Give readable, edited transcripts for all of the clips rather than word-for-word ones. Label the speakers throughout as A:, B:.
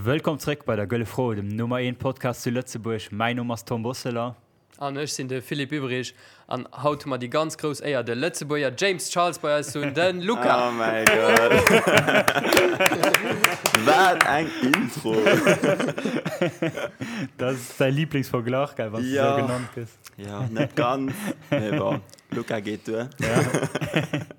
A: Wëllkomm zréck bei der Gëlle Fro, dem Nummer 1 Podcast zu Lëtzebuerg. Mäin Numm ass Tom Bosseler.
B: An ech sinn de Philippe Ueberich. An haut hu mer déi ganz grouss Éier, de Lëtzebuerger James Charles bei eis ze hunn, de Luca.
C: Oh mäi Gott. Wat eng Intro.
A: Dat ass däi Lieblingsverglach, gell, wann s du esou genannt gëss.
C: Jo, net ganz, mee bon, Luca geet duer.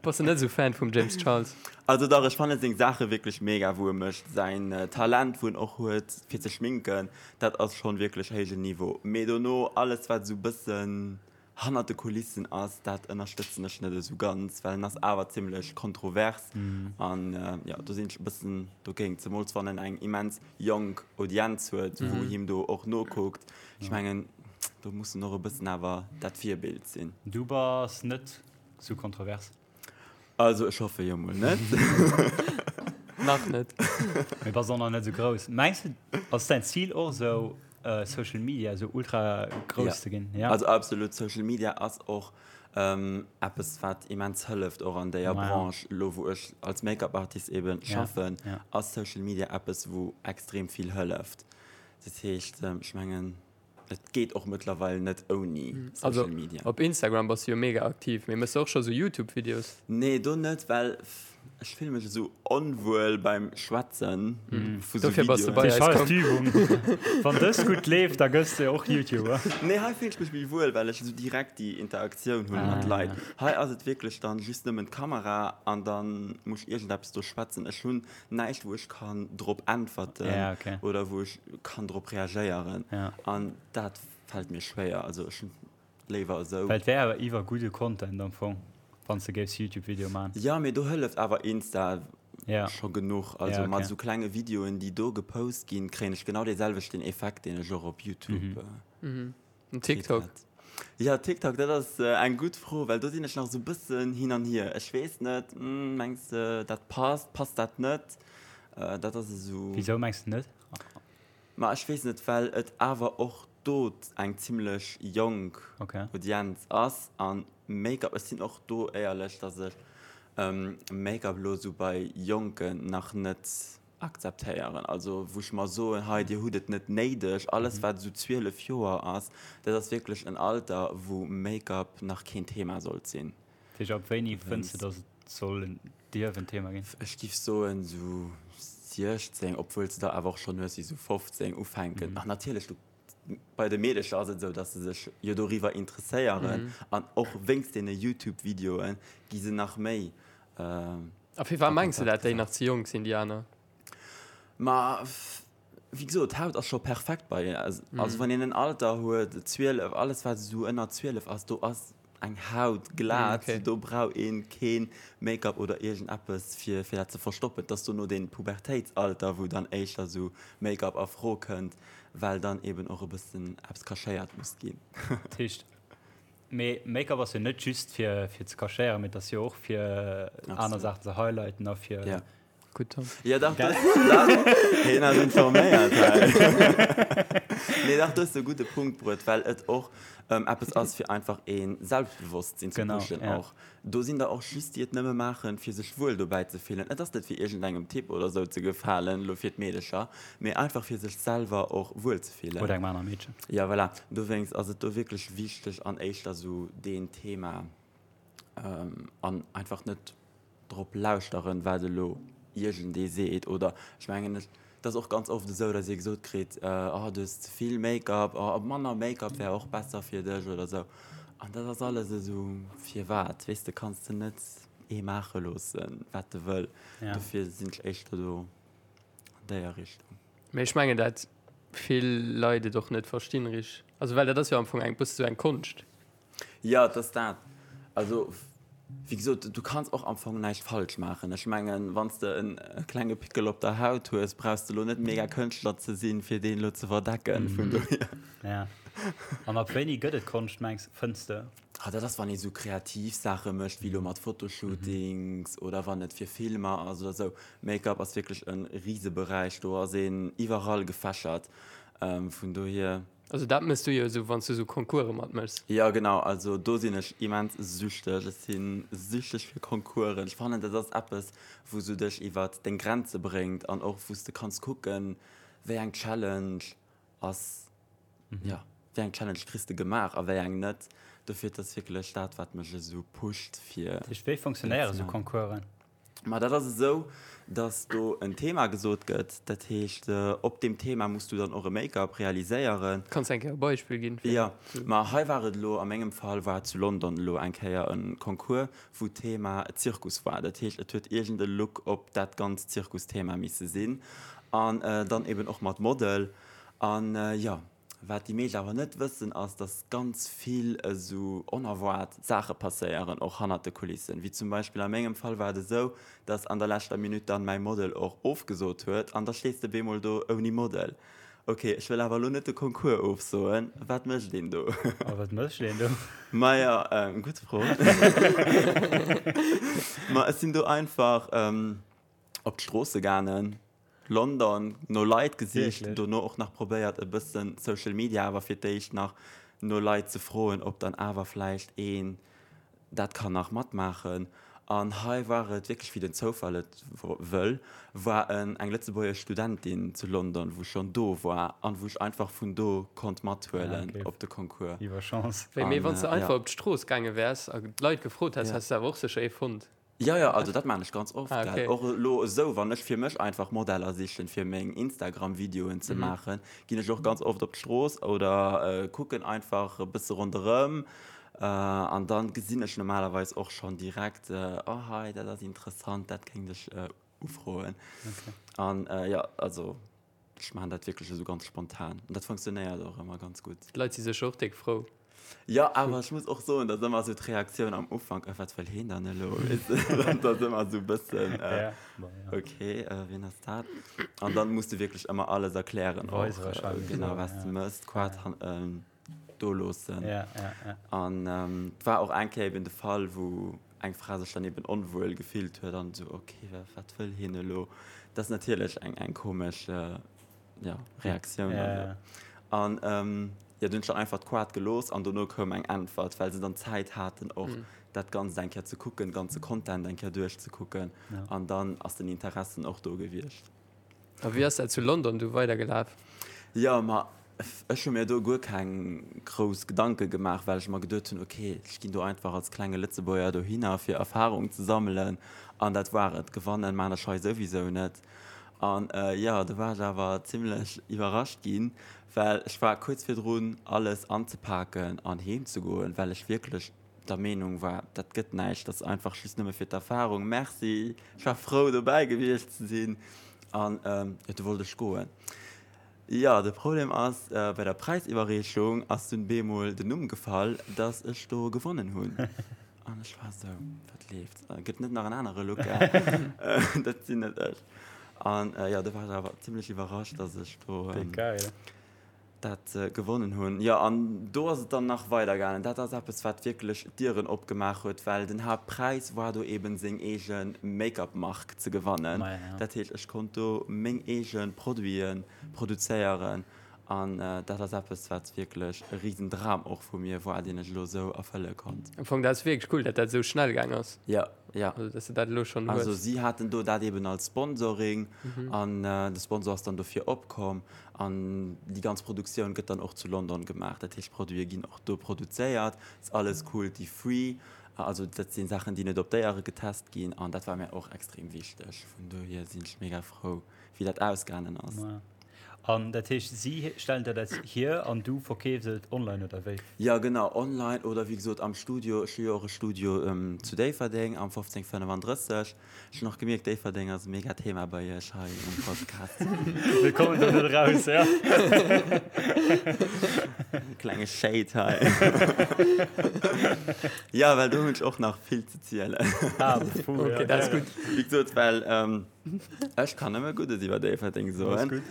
B: Bass de net esou Fan vum James Charles?
C: Also dach, ech fannen seng Saache wierklech mega wou e mécht. Säin Talent wou en och huet fir ze schminken, dat ass schonn wierklech héijen Niveau. Mee dono alles wat esou bëssen hannert de Kulissen ass, dat ënnerstëtzen ech net esou ganz, well en ass awer zimmlech kontrovers an jo do sinn ech e bëssen dogéint, zemools wann en eng immens jonk Audienz huet wou him do och nokuckt. Ech mengen do muss en och e bëssen awer dat Virbild sinn.
A: Du bass net sou kontrovers?
C: Also ech hoffe jo mol net.
B: Nach net.
A: Mee bass och nach net esou grouss. Mengs de, ass däin Zil och esou Social Media esou ultra grouss ze ginn?
C: Ja. Also absolut, Social Media ass och eppes wat immens hëlleft och an déier Branche. Elo wou ech als Make-up Artist eben schaffen, ass Social Media eppes wou extrem vill hëlleft. Dat heescht ech mengen. Et geet och mëttlerweil net ouni Social Media.
B: Also op Instagram bass du jo mega aktiv, mee mëss de och scho sou Youtube Videos?
C: Nee do net, well ech fille mech esou onwuel beim Schwätzen
B: vu sou Dofir bass de bei eis komm.
A: D'Übung. Wann dës gutt leeft, da gëss de och Youtuber.
C: Nee hei fillen ech mech méi wuel, well ech esou direkt déi Interaktioun hunn mat Leit. Hei ass et wierklech dann just nëmmen d'Kamera an dann muss ech iergendeppes do schwätzen. Ech hunn näischt wou ech kann drop äntwerten
A: ja, okay.
C: oder wou ech kann drop reagéieren
A: ja.
C: an dat fällt mir schwéier also ech hunn léiwer esou.
A: Well et wär awer iwwer gudde Content am Fong wann s de géifs Youtube Video man.
C: Ja mee do hëlleft awer Insta
A: ja.
C: scho genuch also
A: ja, okay.
C: mat esou klenge Videoen déi do gepost ginn kréien ech genau dee selwechten Effekt deen ech och op Youtube
B: mhm. Mhm. En TikTok?
C: Ja, TikTok, dat ass eng gutt Fro, well do sinn ech nach esou e bëssen hin an hier. Ech weess net, mengs de dat passt, passt dat net? Dat ass esou.
A: Wisou mengs de net?
C: Ma ech weess net, well et awer och do eng zimmlech jonk Audienz ass an Make-up, ech sinn och do éierlech, datt ech Make-up elo esou bei Jonken nach net akzeptéieren, also wou ech mer soen, hei dir hutt et net néideg, alles wat esou 12 Joer ass, dat ass wierklech en Alter wou Make-up nach keen Thema sollt sinn.
A: Dat heescht ab wéini fënns de datt et soll en, dierf en Thema ginn?
C: Ech giff soen esou 16, obwuel s de der awer och schonn hues déi esou 15 ufänken. Ach natierlech, du bei de Meedecher ass et esou, datt se sech jo doriwwer interesséieren an och wéinst deene Youtube-Videoe gi se nach méi
B: A firwat mengs de dat déi nach ze jonk sinn, déi aner?
C: Ma wéi gesot, d'Haut ass scho perfekt bei hinnen. Also wann een en Alter huet, 12, alles wat esou ënner 12 ass, do ass eng Haut glat, do brauch ee kee Make-up oder iergendeppes fir fir dat ze verstoppen. Et ass dono dee Pubertéitsalter, wou dann éischter esou Make-up a Fro kënnt, well dann eben och e bëssen eppes cachéiert muss ginn.
A: Dat heescht, Mee Make-up ass jo net just fir fir ze cachéieren, mee et ass jo och fir aner Saachen ze highlighten a fir.
C: Ja.
B: Gutt Tom.
C: Ja dach, dach, dach, hien ass informéiert hei. Nee dach, du hues e gudde Punkt bruet, well et och eppes ass fir einfach ee Selbstbewosstsinn ze pushen och. Do sinn der och just déi et nëmme maachen, fir sech wuel dobäi ze fillen. Et ass net fir iergendengem Typ oder sou ze gefalen, elo fir d'Meedecher, mee einfach fir sech selwer och wuel ze fillen.
A: Oder engem anere Meedchen.
C: Jo, voilà. Dowéinst ass et do wierklech wichteg an éischter sou deen Thema an einfach net drop lauschteren, wat elo iergendee seet. Oder ech mengen, et ass och ganz oft esou, datt ee gesot kritt, Oh, du hues ze vill Make-up, oh, manner Make-up wär och besser fir dech oder esou. An dat ass alles esou, firwat? Weess de, kanns de net ee maache loossen, wat e wëll. Dofir sinn ech éischter do an déier Richtung.
B: Mee ech mengen, dat vill Leit et och net verstinn richteg. Also well dat ass jo am Fong eng bësse sou eng Konscht.
C: Jo, et ass dat. Also, wéi gesot, du kanns och am Fong näischt falsch maachen. Ech mengen, wann s de en klenge Pickel op der Haut hues, brauchs de elo net mega Kënschtler ze sinn, fir deen elo ze verdecken. Vun dohier.
A: Ja. An ab wéini gëtt et Konscht, mengs, fënns de?
C: Ah, dat ass, wann ee sou kreativ Saache mécht, wéi elo mat Fotoshootings oder wann et fir Filmer ass oder sou. Make-up ass wierklech e Riseberäich, do ass een iwwerall gefächert. Vun dohier.
B: Also dat mëss du jo esou wann s du esou Concourse matmëchs.
C: Jo genau, also do sinn ech immens süchteg. Ech si süchteg fir Concoursen. Ech fannen dat ass eppes wou s du dech iwwert deng Grenze bréngt an och wou s de kanns kucken. wéi eng Challenge ass, jo, wéi eng Challenge kriss de gemaach a wéi eng net. Dofir, et ass wierklech dat, wat mech esou pusht, fir.
A: Dat heescht, wéi funktionéiere sou Concoursen?
C: Ma dat ass esou, dass do en Thema gesot gëtt. Dat heescht, op deem Thema muss du dann och e Make-up realiséieren.
B: Kanns de eng Kéier e Beispill ginn?
C: Jo, ma hei war et elo, a mengem Fall war et zu London elo eng Kéier e Concours, wou d'Thema Zirkus war. Dat heescht, et huet iergend e Look op dat ganzt Zirkusthema misse sinn an dann eben och mat Model. An jo, Wat déi meescht awer net wëssen, ass, dass ganz vill esou onerwaart Saache passéieren, och hannert de Kulissen. Wéi zum Beispill a mengem Fall war et esou, dass an der leschter Minutt dann mäi Model och ofgesot huet an da stees de bemol do ouni Model. Ok, ech wëll awer elo net de Concours ofsoen, wat mécht een do?
A: A wat mécht een do?
C: Maja, gutt Fro. Ma ech sinn do einfach op d'Stroosse gaangen, London, no Leit gesicht, dono och nach probéiert e bëssen Social Media, awer fir d'éischt nach no Leit ze froen, ob dann awer vläicht een dat kann nach matmaachen. An hei war et wierklech, wéi den Zoufall et wëll, war en eng lëtzebuergesch Studentin zu London, wou schonn do war an wou ech einfach vun do konnt mathuelen op de Concours.
A: Iwwer Chance.
B: Wéi, mee wann s de einfach op d'Strooss gaange wäers a d'Leit gefrot häss, häss de awer och sécher ee fonnt.
C: Jo, jo, also dat maan ech ganz oft, gell. Och elo esou, wann ech fir mech einfach Modeller sichen, fir meng Instagram-Videoen ze maachen, ginn ech och ganz oft op d'Strooss oder kucken einfach e bësse ronderëm an dann gesinn ech normalerweis och schonn direkt, oh hei, dat ass interessant, dat kéint ech ufroen. An jo, also Ech maachen dat wierklech esou ganz spontan an dat funktionéiert och ëmmer ganz gutt.
B: D'Leit si sécher och déck frou.
C: Jo, awer ech muss och soen, dass ëmmer esou d'Reaktioun am Ufank, Äh, wat wëll heen dann elo? Weess de, dat ass ëmmer esou e bëssen, Ok, wien ass dat? An dann muss de wierklech ëmmer alles erklären och, genau, wat s de mëss, d'Quad do loossen.
A: Ja, ja,
C: ja. An et war och eng Kéier eben de Fall, wou eng Fra sech dann eben onwuel gefillt huet an esou, ok, wat wëll hien elo? Dat ass natierlech eng, eng komesch, ja, Reaktioun.
A: Ja, ja.
C: An jo, dunn hunn ech dann einfach d'Quad gelooss an dono koum eng Äntwert, well se dann Zäit haten och dat Ganzt eng Kéier ze kucken, de ganze Content eng Kéier duerchzekucken. An dann ass den Interessen och do gewiescht.
B: A wéi ass dat zu London du weidergelaf?
C: Jo, ma ech hu mir do guer keng grouss Gedanke gemaach, well ech mer geduet hunn, ok, ech ginn do einfach als klenge Lëtzebuerger dohinner, fir Erfarung ze sammelen an dat war et. Gewannen maan ech hei souwisou net. An jo, do war ech awer zimmlech iwwerrascht ginn, well ech war kuerz virdrun alles anzepaken an heem ze goen, well ech wierklech der Meenung war, dat gëtt näischt, dat ass einfach just nëmme fir d'Erfahrung, merci, ech war frou dobäi gewiescht ze sinn an jo, du wollt ech goen. Jo, de Problem ass, bei der Präisiwwerreechung ass dunn bemol den Numm gefall, dass ech do gewonnen hunn an ech war esou, wat leeft, gëtt net nach en anere Luca, dat sinn net ech. An jo, do war ech awer zimlech iwwerrascht, dass ech do.
A: Geil.
C: Dat gewonnen hunn. Jo, an do ass et dann nach weider gaangen. Dat ass eppes, wat wierklech d'Dieren opgemaach huet, well den Haaptpräis war do eben seng eege Make-up-Mark ze gewannen. Dat heescht, ech konnt do meng eege Produite produzéieren an dat ass eppes, wat wierklech e Risendram och vu mir war, deen ech elo esou erfëlle konnt.
B: Am Fong, dat ass wierklech cool, dat dat esou schnell gaang ass.
C: Jo, jo.
B: Also, dass de dat elo schonn hues.
C: Also si haten do dat eben als Sponsoring an de Sponsor ass dann dofir opkomm. An déi ganz Produktioun gëtt dann och zu London gemaach. Dat heescht, d'Produite ginn och do produzéiert. Ass alles cruelty free. Also dat si Saachen, déi net op Déiere getest ginn. An dat war mär och extrem wichteg. Vun dohier sinn ech mega frou, wéi dat ausgaangen ass.
A: An dat heescht, si stellen der dat hier an du verkeefs et online, oder wéi?
C: Jo, genau, online oder wéi gesot am Studio. Ech hu jo och e Studio zu Déifferdeng am 1535. Ech hun och gemierkt, Déifferdeng ass e mega Thema bei iech hei um Podcast.
A: Mir kommen do net raus, ja.
C: Klenge Shade hei. Ja, well do hunn ech och nach vill ze zielen.
A: Ah, puh,
B: okay, ja, dat ass gutt.
C: Wéi gesot, well ähm, ech kann nëmme Guddes iwwer Déifferdeng soen.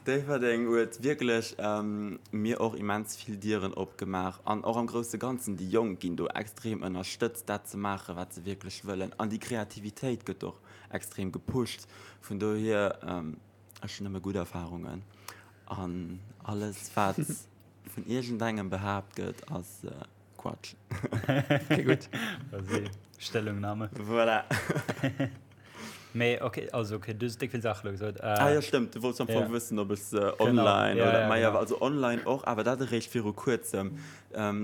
C: Déifferdeng huet wierklech ähm, mir och immens vill Dieren opgemaach an och am grousse Ganzen, déi Jonk ginn do extrem ënnerstëtzt, dat ze maachen, wat se wierklech wëllen. An déi Kreativitéit gëtt och extrem gepusht. Vun dohier, ech hunn nëmme gutt Erfarungen. An alles, wat vun iergendengem behaapt gëtt, ass Quatsch.
B: Okay, gutt.
A: Stellungnahme.
C: Voilà.
A: Mee ok, also ok, du hues déck vill Saache lo gesot.
C: Ah jo, stëmmt, du wollts am Fong wëssen, ob ech se online oder, ma jo, also online och, awer dat eréischt viru kuerzem.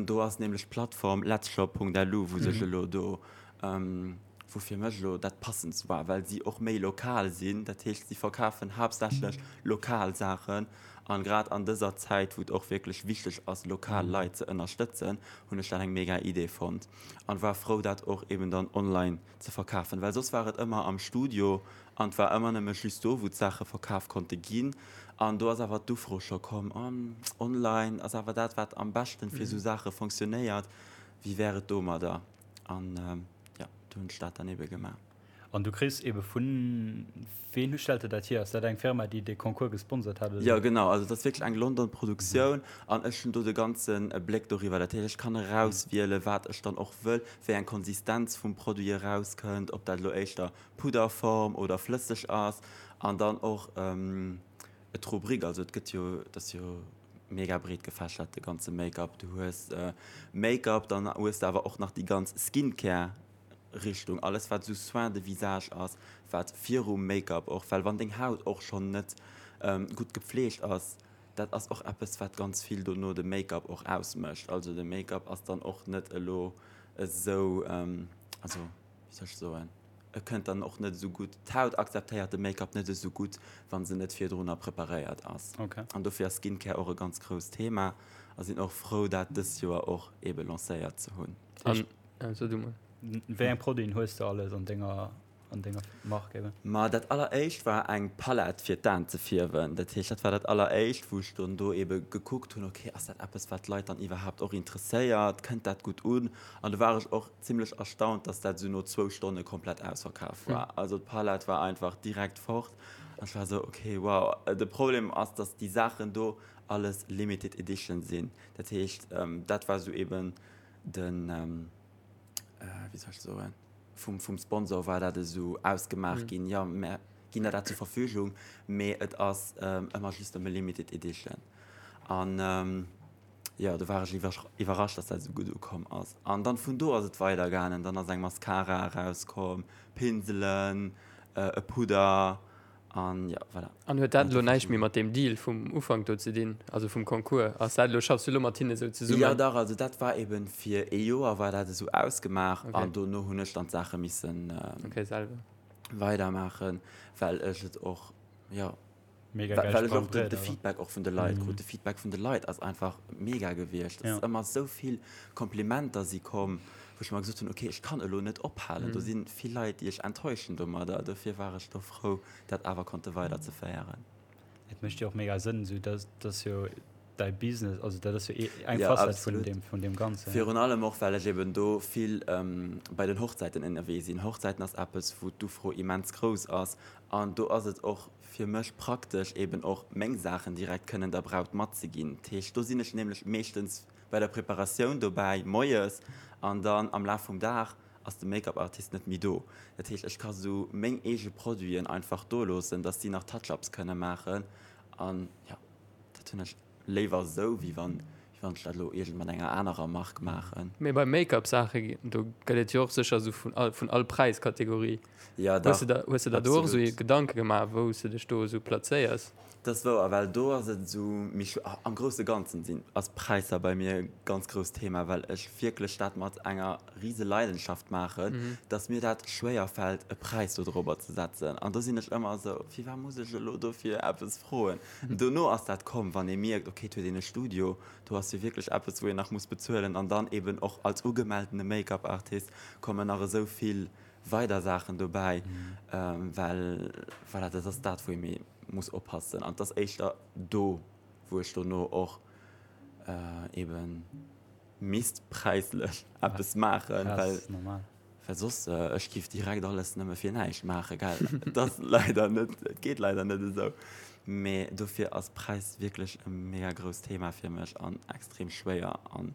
C: Do ass nämlech d'Plattform letzshop.lu, wou sech elo do, wou fir mech elo dat passendst war, well si och méi lokal sinn. Dat heescht, si verkafen haaptsächlech lokal Saachen. An grad an dëser Zäit, wou et och wierklech wichteg ass, lokal Leit ze ënnerstëtzen, hunn ech dat eng mega Idee fonnt an war frou, dat och eben dann online ze verkafen, well soss war et ëmmer am Studio an et war ëmmer nëmme just do, wou d'Saache verkaf konnte ginn. An do ass awer d'Ufro scho komm, oh, online ass awer dat, wat am beschten fir esou Saache fonctionnéiert, wéi wär et domadder? An jo, do hunn ech dat dann ebe gemaach.
A: An du kriss ebe vun, ween stellt der dat hier? Ass dat eng Firma, déi de Concours gesponsert hat
C: oder? Jo, genau, also et ass wierklech eng London Produktioun an ech hunn do de ganze Bléck doriwwer. Dat heescht, ech kann erauswielen, wat ech dann och wëll, wéi eng Konsistenz vum Produit erauskënnt, ob dat elo éischter Pudderform oder flësseg ass an dann och d'Rubrik, also et gëtt jo, et ass jo mega breet gefächert de ganze Make-up. Du hues Make-up, dann hues de awer och nach déi ganz Skincare Richtung, alles wat esou Soin de visage ass, wat virum Make-up och, well wann deng Haut och schonn net gutt gepfleegt ass, dat ass och eppes wat ganz vill dono de Make-up och ausmécht. Also de Make-up ass dann och net elo esou, also wéi soll ech soen, e kënnt dann och net esou gutt, d'Haut akzeptéiert de Make-up net esou gutt, wa se net virdrunner preparéiert ass. An dofir ass Skincare och e ganz grousst Thema a sinn och frou dat dëst Joer och ebe lancéiert ze hunn.
B: Ja, so du mol.
A: Wéi eng Produiten hues de alles an denger, an denger Mark eben?
C: Ma dat alleréischt war eng Palett fir d'Aen ze fierwen. Dat heescht, dat war dat alleréischt, wou ech dann do ebe gekuckt hunn, okay, ass dat eppes, wat d'Leit dann iwwerhaapt och interesséiert, kënnt dat gutt un? An do war ech och zimlech erstaunt, dass dat esou no zwou Stonne komplett ausverkaf war. Also d'Palett war einfach direkt fort an ech war esou, okay, wow. De Problem ass, dass déi Saachen do alles limited edition sinn. Dat heescht, dat war esou eben den, wéi soll ech soen, vum, vum Sponsor war dat esou ausgemaach ginn, jo, mär ginn der dat zur Verfügung, mee et ass ëmmer just nëmme Limited Edition. An jo, do war ech iwwerrascht, dass dat esou gutt ukomm ass. An dann vun do ass et weidergaangen, dann ass eng Mascara erauskomm, Pinselen, e Pudder, An jo, voilà.
B: An huet dat elo näischt méi mat deem Deal vum Ufank do ze dinn, also vum Concours? Ass dat elo, schaffs du elo mat hinne sou zesummen?
C: Jo, dach, also dat war eben fir ee Joer war dat esou ausgemaach an dono hunn ech dann d'Saache missen weidermaachen, well ech et och, jo, well ech och de Feedback och vun de Leit krut. De Feedback vun de Leit ass einfach mega gewiescht. Et ass ëmmer esou vill Komplimenter si komm, wou ech mer gesot hunn, ok, ech kann elo net ophalen, do si vill Leit, déi ech enttäuschen domadder. Dofir war ech do frou, dat awer konnte weiderzeféieren.
A: Et mécht jo och mega Sënn, esou dass dass jo däi Business, also dat ass jo eng Facette vun deem vun deem Ganzen.
C: Virun allem och, well ech eben do vill bei den Hochzäiten ënnerwee sinn. Hochzäiten ass eppes, wou d'Ufro immens grouss ass an do ass et och fir mech praktesch, eben och meng Saachen direkt kënnen der Braut matzeginn. Dat heescht, do sinn ech nämlech meeschtens bei der Preparatioun dobäi moies an dann am Laf vum Dag ass de Make-up Artist net méi do. Dat heescht ech ka sou meng eege Produiten einfach do loossen, dass si nach Touch-ups kënne maachen an jo dat hunn ech léiwer esou wéi wann wéi wann ech dat elo iergend mat enger anerer Mark maachen.
B: Mee bei Make-up Saache do gëtt et jo och sécher esou vun all vun all Präiskategorie.
C: Jo dach,
B: Hues de der hues de der do och esou Gedanke gemaach wou s de dech do esou plazéiers?
C: Dat ass wouer, well do ass et esou méi schw-, am grousse Ganzen sinn, ass Präisser bei mir e ganz grousst Thema, well ech wierklech dat mat enger rise Leidenschaft maachen, dass mir dat schwéier fält e Präis do dorobber ze setzen. An do sinn ech ëmmer esou, firwat muss ech elo dofir eppes froen? Dono ass dat komm, wann ee mierkt, okay, et huet een e Studio, do ass jo wierklech eppes wou een nach muss bezuelen an dann eben och als ugemeltene Make-up-Artist kommen nach esou vill weider Saachen dobäi, well voilà, dat ass dat wou ee méi muss oppassen an et ass éischter do wou ech dono och eben misst präislech eppes maachen, well well soss ech giff direkt alles nëmme fir näischt maachen, gell. Et ass leider net, et geet leider net esou, mee dofir ass Präis wierklech e mega grousst Thema fir mech an extrem schwéier an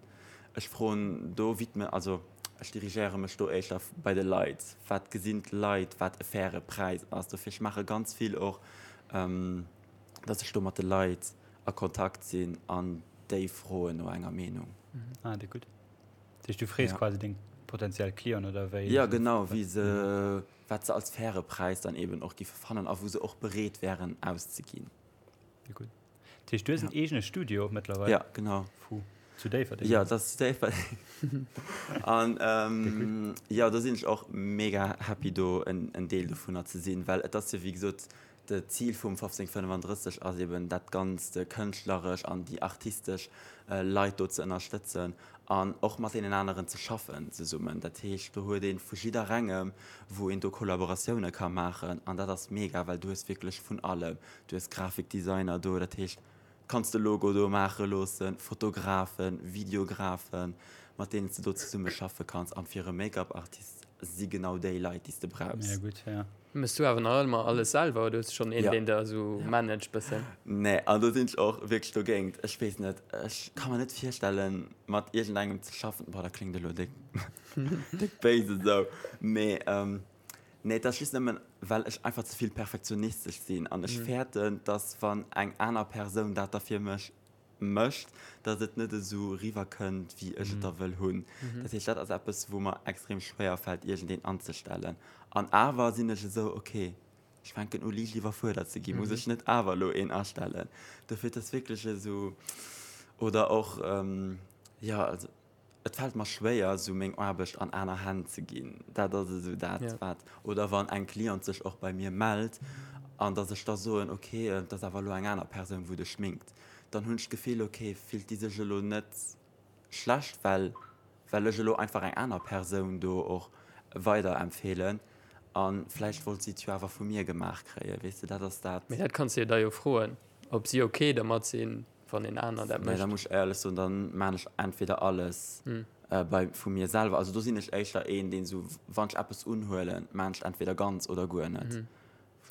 C: ech froen do widme, also Ech dirigéiere mech do éischter bei de Leit. Wat gesinn d'Leit, wat e faire Präis ass? Dofir, ech maache ganz vill och, dass ech do mat de Leit a Kontakt sinn an déi froen no enger Meenung.
A: Ah, déi gutt. Dat heescht, du frees quasi deng potentiell Clienten oder wéi?
C: Jo, genau, wéi se. wat se als faire Präis dann eben och giffe fannen a wou se och bereet wären auszeginn.
A: Déi gutt. Dat heescht, du hues en eegene Studio mëttlerweil?
C: Ja, genau.
A: Fou. Zu Déifferdeng?
C: Ja, dat ass zu Déifferdeng. An jo, do sinn ech och mega happy do en Deel dovunner ze sinn, well et ass jo wéi gesot, d'Zil vum 1535 ass eben dat Ganzt kënschtleresch an déi artistesch Leit do ze ënnerstëtzen an och mat deenen aneren ze schaffen zesummen. Dat heescht, do huet ee vu jidderengem, wou een do Kollaboratioune ka maachen an dat ass mega, well du hues wierklech vun allem. Du hues Grafikdesigner do, dat heescht, kanns de Logo do maache loossen, Fotografen, Videografen, mat deenen s de do zesumme schaffe kanns. An fir e Make-up-Artist si genau déi Leit, déi s de brauchs.
A: Mega gutt, ja.
B: Mëss du awer nach ëmmer alles selwer oder hues du schonn een, deen der esou managt bëssen?
C: Nee, an do sinn ech och wierklech dogéint. Ech weess net, ech ka mer net virstellen, mat iergendengem ze schaffen. Boah, dat kléngt elo déck, déck béis esou, mee nee, et ass just nëmmen, well ech einfach ze vill perfektionistesch sinn an ech fäerten, dass wann eng aner Persoun dat da fir mech mécht, dass et net esou riwwer kënnt, wéi ech et da wëll hunn. Dat heescht, dat ass eppes, wou mer extrem schwéier fält, iergendeen anzestellen. An awer sinn ech esou, ok, ech fänken u liicht iwwerfuerdert ze ginn, muss ech net awer elo een astellen? Dofir, et ass wierklech esou, oder och, jo, also Et fält mer schwéier, esou meng Aarbecht an aner Hänn ze ginn. Dat ass esou dat, wat. Oder wann eng Cliente sech och bei mir mellt an dass ech da soen, ok, et ass awer elo eng aner Persoun, wou dech schminkt, dann hunn ech d'Gefill, ok, fillt déi sech elo net schlecht, well well ech elo einfach eng aner Persoun do och weiderempfeelen a vläicht wollt si et jo awer vu mir gemaach kréien, weess de, dat ass dat.
B: Mee dat kanns de jo da jo froen, ob si ok dermat sinn. wann een aner dat
C: mécht. Nee, da muss ech éierlech soen, dann maan ech entweder alles bei vu mir selwer, also do sinn ech éischter een deen esou wann ech eppes unhuelen, maan ech entweder ganz oder guer net,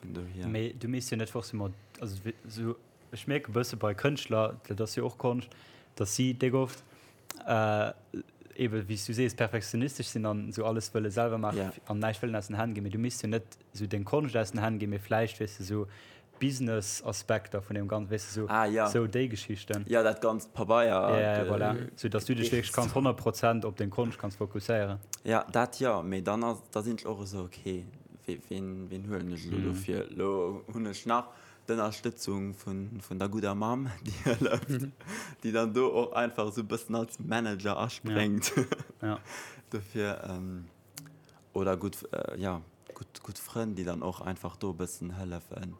C: vun dohier.
A: Mee du misst jo net forcément, also esou ech mierke bësse bei Kënschtler, dat ass jo och Konscht, datt si déck oft ebe wéi s du sees perfektionistesch sinn an esou alles wëlle selwer maachen an näischt wëllen aus den Hänn ginn, mee du misst jo net esou deng Konscht aus den Hänn ginn, mee vläicht weess de esou Business-Aspekter vun deem Ganzen, weess de, sou,
C: Ah, ja.
A: sou déi Geschichten.
C: Ja, dat ganzt Pabeier.
A: Ja, ja, voilà. Sou dass du dech wierklech kanns 100 Prozent op deng Konscht kanns fokusséieren.
C: Ja, dat jo, mee dann ass, da sinn ech och esou, okay, wee, ween, ween huelen ech elo dofir? Elo hunn ech nach d'Ënnerstëtzung vun, vun der gudder Mamm, déi hëlleft, déi dann do och einfach esou e bëssen als Manager aspréngt.
A: Ja.
C: Dofir, Oder gutt, jo, gutt, gutt Frënn, déi dann och einfach do e bëssen hëllefen.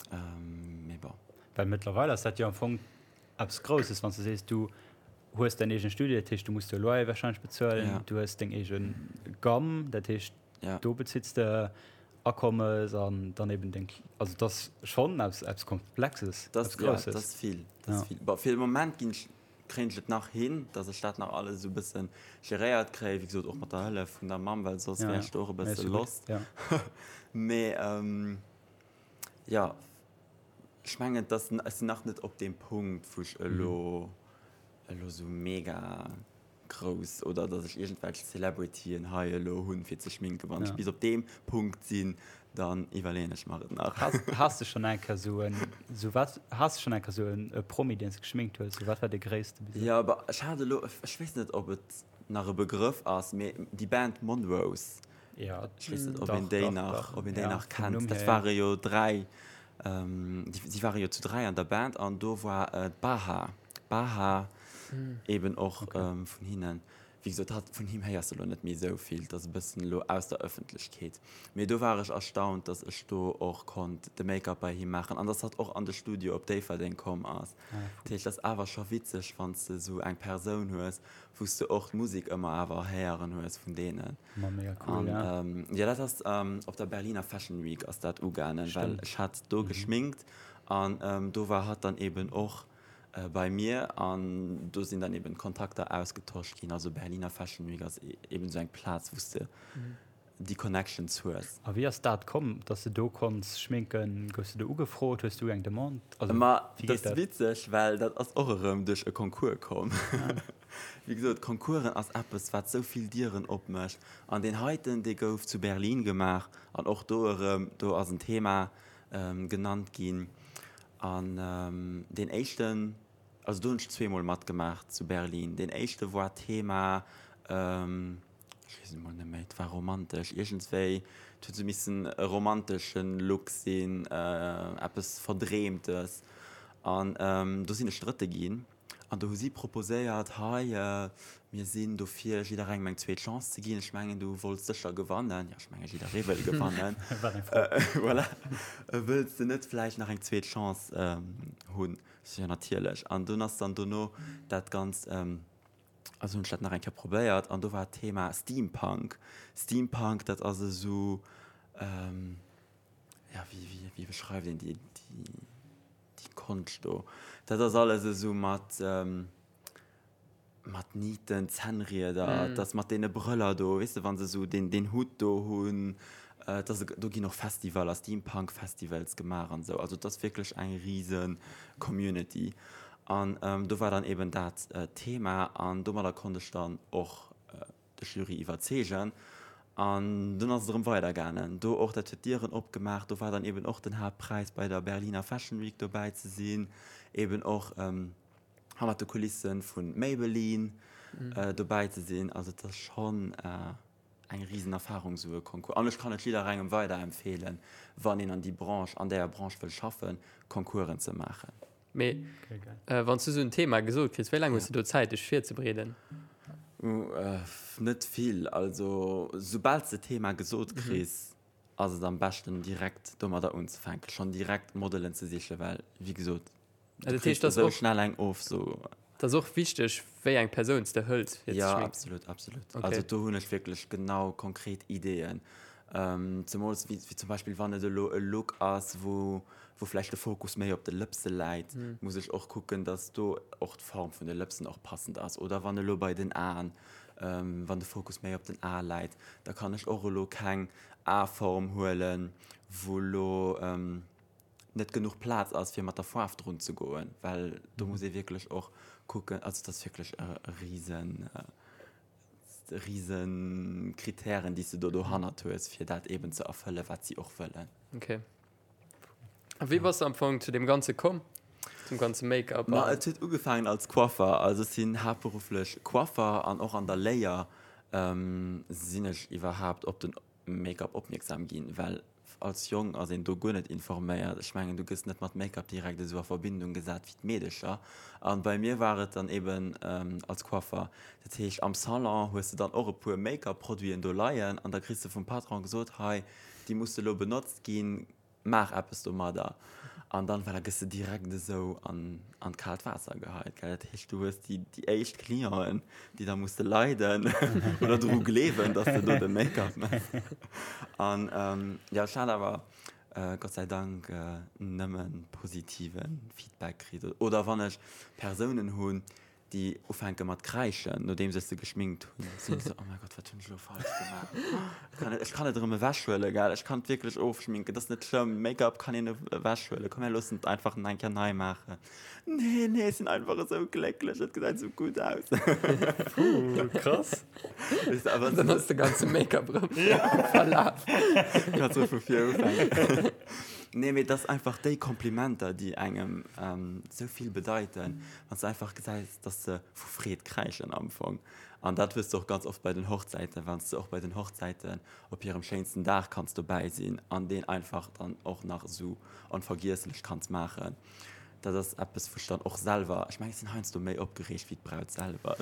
C: Mee bon.
A: Well mëttlerweil ass dat jo am Fong eppes Grousses, wann s de sees, du hues däin eegene Studio, dat heescht, du muss de Loyer warscheinlech bezuelen,
C: Ja.
A: du hues deng eege Gamm, dat heescht,
C: Ja.
A: do bezitts de Akommes an dann eben deng, also dat ass schonn eppes, eppes Komplexes,
C: Dat
A: eppes
C: ass, ja,
A: Grousses.
C: dat ass vill, dat ass
A: Ja.
C: vill. Bon, fir de Moment ginn ech Kréien ech et nach hin, dass ech dat nach alles esou e bësse geréiert kréien, wéi gesot och mat der Hëllef vun der Mamm, well soss wär ech do och e bësse lost. Mee jo, ech mengen, dass ech sinn nach net op deem Punkt, wou ech elo elo esou mega grouss oder dass ech iergendwelch Celebrityen hei elo hunn, fir ze schminken. Wann ech bis op deem Punkt sinn, Dann iwwerleeën ech mer et nach.
A: Has de schonn eng Kéier sou en, sou wat, has de schonn eng Kéier sou en Promi, deen s de geschminkt hues? Sou wat war dee gréisste
C: bis elo? Jo, bah, ech hat elo, ech weess net, ob et nach e Begrëff ass, mee déi Band Monrose.
A: Jo,
C: Ech weess net, ob
A: dach,
C: een déi
A: dach,
C: nach,
A: dach.
C: ob een déi
A: Ja,
C: nach
A: vum
C: kennt.
A: Numm
C: Dat
A: hier, ja.
C: ware jo 3, déi, si ware jo zu 3 an der Band an do war d'Baha, Baha eben och vun hinnen. Wéi gesot, hatt, vun him héiers de elo net méi esou vill, et ass e bëssen elo aus der Ëffentlechkeet. Mee do war ech erstaunt, dass ech do och konnt de Make-up bei him maachen an dass hatt och an de Studio op Déifferdeng komm ass. Dat heescht, et ass awer scho witzeg, wann s de esou eng Persoun hues, wou s de och d'Musek ëmmer awer héieren hues vun deenen.
A: Ma mega cool, ja.
C: An jo, dat ass op der Berliner Fashion Week ass dat ugaangen, well ech hat do geschminkt an do war hatt dann eben och Bei mir an do sinn dann eben Kontakter ausgetosch ginn. Also Berliner Fashion Week ass eben esou eng Plaz, wou s de déi Connections hues.
A: A wéi ass dat komm, dass de do konns schminken? Goufs de do ugefrot? Hues du eng Demande? Also
C: Ma
A: wéi
C: dat
A: geet
C: ass
A: dat?
C: witzeg, well dat ass och erëm duerch e Concours komm. Wéi gesot, Concoursen ass eppes, wat esou vill Dieren opmécht. An deen heiten, dee gouf zu Berlin gemaach an och do erëm, do ass en Thema genannt ginn. An deen éischten, also do hunn ech zweemol matgemaach zu Berlin. Deen éischte war Thema. Ech weess et emol net méi. Et war romantesch iergendswéi. Et huet esou missen e romantesche Look sinn, eppes Verdreemtes. An do sinn ech Drëtte ginn. An do hu si proposéiert, hei, mir sinn dofir, jidderengem eng zweet Chance ze ginn. Ech mengen, du wollts sécher gewannen. Jo, ech mengen, jidderee wëll gewannen.
A: Wat eng Fro.
C: Voilà. Wëlls de net vläicht nach eng zweet Chance hunn? Ech sou, Jo, natierlech. An dunn ass dann dono dat Ganzt, also hunn ech dat nach eng Kéier probéiert an do war d'Thema Steampunk. Steampunk, dat ass esou, jo, wéi, wéi, wéi beschreift een déi, déi. Déi Konscht do, dat ass alles esou mat, mat Nieten, Zännrieder, et ass mat deene Brëller do, weess de, wa se esou deen, deen Hutt do hunn. Et ass, do ginn och Festivaler, Steampunk-Festivals gemaach an esou. Also et ass wierklech eng rise Community. An do war dann eben dat Thema an domadder konnt ech dann och de Jury iwwerzeegen. An dunn ass et erëm weider gaangen. Do och, dat huet Dieren opgemaach. Do war dann eben och den Haaptpräis bei der Berliner Fashion Week dobäi ze sinn, eben och hannert de Kulisse vu Maybelline dobäi ze sinn. Also et ass schonn eng risen Erfarung esou e Concours. An ech kann et jidderengem weiderempfeelen, wann een an déi Branche, an däer Branche wëll schaffen, Concoursen ze maachen.
B: Mee wann s du esou en Thema gesot kriss, wéi laang hues du do Zäit, dech virzebereeden?
C: Net vill. Also soubal s de d'Thema gesot kriss, ass et am beschten direkt domadder unzefänken, schonn direkt Modelen ze sichen, well wéi gesot, du kriss esou schnell eng Ofso.
B: Et ass och wichteg, wéi eng Persoun s de hëls
C: fir ze schminken. Jo, absolut, absolut. Also do hunn ech wierklech genau konkret Ideeën. Zemools wéi zum Beispill wann et elo e Look ass, wou wou vläicht de Fokus méi op de Lëpse läit, muss ech och kucken, dass do och d'Form vun de Lëpsen och passend ass. Oder wann elo bei den Aen, wann de Fokus méi op den Ae läit, da kann ech och elo keng Aeform huelen, wou elo net genuch Plaz ass, fir mat der Faarf drun ze goen, well do muss ee wierklech och kucken, also et ass wierklech e risen, risen Kritären, déi s de do dohannert hues, fir dat eeben ze erfëllen, wat si och wëllen.
B: Okay. A wéi bass de am Fong zu deem Ganze komm? Zum ganze Make-up?
C: Ma et huet ugefaangen als Coiffer. Also ech sinn haaptberufflech Coiffer an och an der Léier sinn ech iwwerhaapt op den Make-up opmierksam ginn, well als Jong ass een do guer net informéiert. Ech mengen, du gëss net mat Make-up direkt esou a Verbindung gesat wéi d'Meedecher. An bei mir war et dann eben als Coiffer. Dat heescht, am Salon hues de dann och e puer Make-up-Produiten do leien an da kriss de vum Patron gesot, hei, déi musse lo benotzt ginn, maach eppes domadder. An dann, voilà, gëss de direkt esou an, an d'kaalt Waasser geheit, gell. Dat heescht, du hues déi, déi éischt Clienten, déi da musse leiden oder dru gleewen, dass de do de Make-up méchs. An jo, ech hat awer Gott sei Dank nëmme positive Feedback kritt. Oder wann ech Persounen hunn, déi ufänke mat kräischen, nodeems ech se geschminkt hunn, sinn ech esou, oh mäi Gott, wat hunn ech elo falsch gemaach? Ech kann et, ech kann et erëm ewechhuelen, gell, ech kann et wierklech ofschminken, et ass net schlëmm, Make-up kann een ewechhuelen, komm mir loossen et einfach nach eng Kéier nei maachen. Nee, nee, ech sinn einfach esou glécklech, et gesäit esou gutt aus.
B: Puh, krass. Weess de, awer Dann ass de ganze Make-up erëm verlaf.
C: Kannst du vu vir ufänken. Nee, mee et ass einfach déi Komplimenter, déi engem esou vill bedeiten. Wann s de einfach gesäis, dass se vu Freed kräischen am Fong. An dat hues de och ganz oft bei den Hochzäiten, wann s de och bei den Hochzäiten op hirem schéinsten Dag kanns dobäi sinn an deen einfach dann och nach esou onvergiesslech kanns maachen. Dat ass eppes, wou ech dann och selwer, ech mengen, ech sinn heiansdo méi opgereegt wéi d'Braut selwer.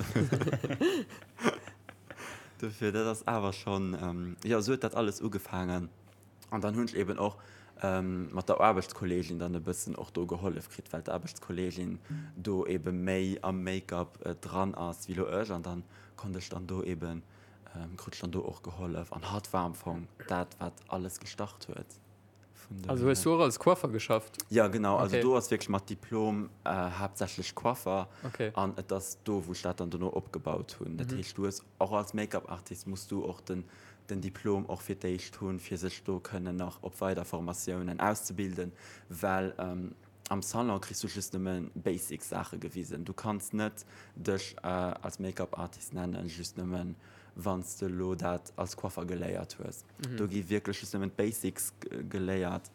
C: Dofir, dat ass awer schonn, jo, esou huet dat alles ugefaangen. An dann hunn ech eben och mat der Aarbechtskolleegin dann e bëssen och do gehollef kritt, well d'Aarbechtskolleegin do ebe méi am Make-up dran ass wéi lo ech. An dann konnt ech dann do eben, krut ech dann do och gehollef. An hatt war am Fong dat, wat alles gestart huet.
B: Also hues du och als Coiffer geschafft?
C: Jo, genau. Also do ass wierklech mat Diplom haaptsächlech Coiffer. An et ass do, wou ech dat dann dono opgebaut hunn. Dat heescht, du hues och als Make-up-Artist muss du och den den Diplom och fir d'éischt hunn, fir sech do kënnen nach op weider Formatiounen auszebilden, well am Salon kriss du just nëmme basic Saache gewisen. Du kanns net dech als Make-up-Artist nennen, just nëmmen wann s de elo dat als Coiffer geléiert hues. Do gi wierklech just nëmmen d'Basics geléiert.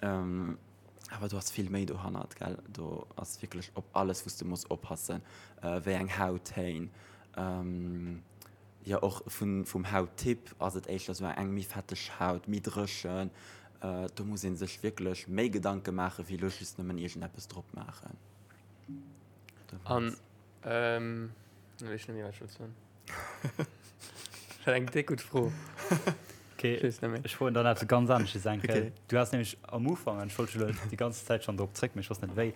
C: Awer do ass vill méi dohannert, gell. Do ass wierklech op alles, wou s de muss oppassen, wéi eng Hauttéin. Jo, och vun, vum Hauttyp ass et éischter sou eng méi fetteg Haut, méi dréchen. Do muss ee sech wierklech méi Gedanke maachen, wéi elo just nëmmen iergendeppes drop maachen.
B: An, elo weess ech net méi, wat ech wollt soen. Dat war eng déck gutt Fro.
A: Okay, ech weess net méi. Ech froen dann eppes ganz anesches eng Kéier. Okay. Du has nämlech am Ufank, an ech wollt elo déi ganz Zäit schonn drop zréck, mee ech wosst net wéi,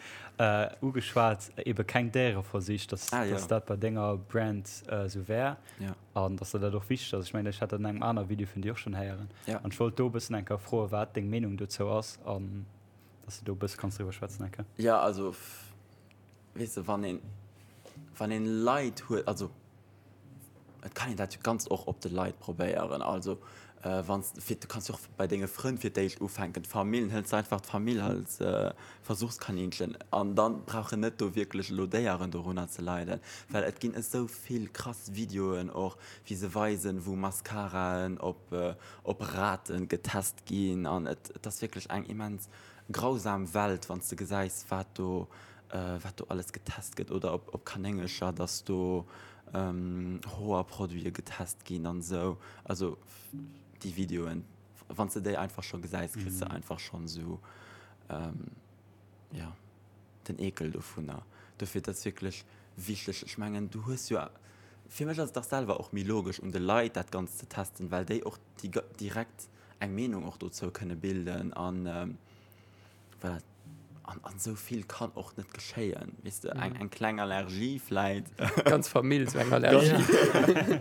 A: ugeschwat, ebe keng Déiereversich, dass, ah, ja. dass dat bei denger Brand esou wär. Ja. An dass der dat och wichteg ass. Ech mengen, ech hat dat an engem aner Video vun dir och schonn héieren. Ja. An ech wollt do e bëssen eng Kéier froen, wat deng Meenung dozou ass an dass du do e bësse kanns driwwer schwätzen eng Kéier.
C: Ja, also, weess de, wann een, wann een Leit huet, also et kann een dat jo ganz och op de Leit probéieren. Also wann s fir, du kanns jo och bei denge Frënn fir d'éischt ufänken, d'Famill, hëls de einfach d'Famill als Versuchskaninchen an dann brauchen net do wierklech elo Déieren dorunner ze leiden, well et ginn esou vill krass Videoen och, wéi se weisen, wou Mascaraen op op Raten getest ginn an et et ass wierklech eng immens grausam Welt, wann s de gesäis, wat do, wat do alles getest gëtt oder op, op Kanéngercher, dass do Hoerproduite getest ginn an esou. Also déi Videoen, wann s de déi einfach scho gesäis, kriss de einfach schonn esou, jo, den Eekel dovunner. Dofir, dat ass wierklech wichteg. Ech mengen, du hues jo, fir mech ass et dach selwer och méi logesch, un de Leit dat Ganzt ze testen, well déi och direkt eng Meenung och dozou kënne bilden an voilà, an an esou vill kann och net geschéien, weess de, eng eng kleng Allergie vläit.
B: Ganz Famill sou eng Allergie.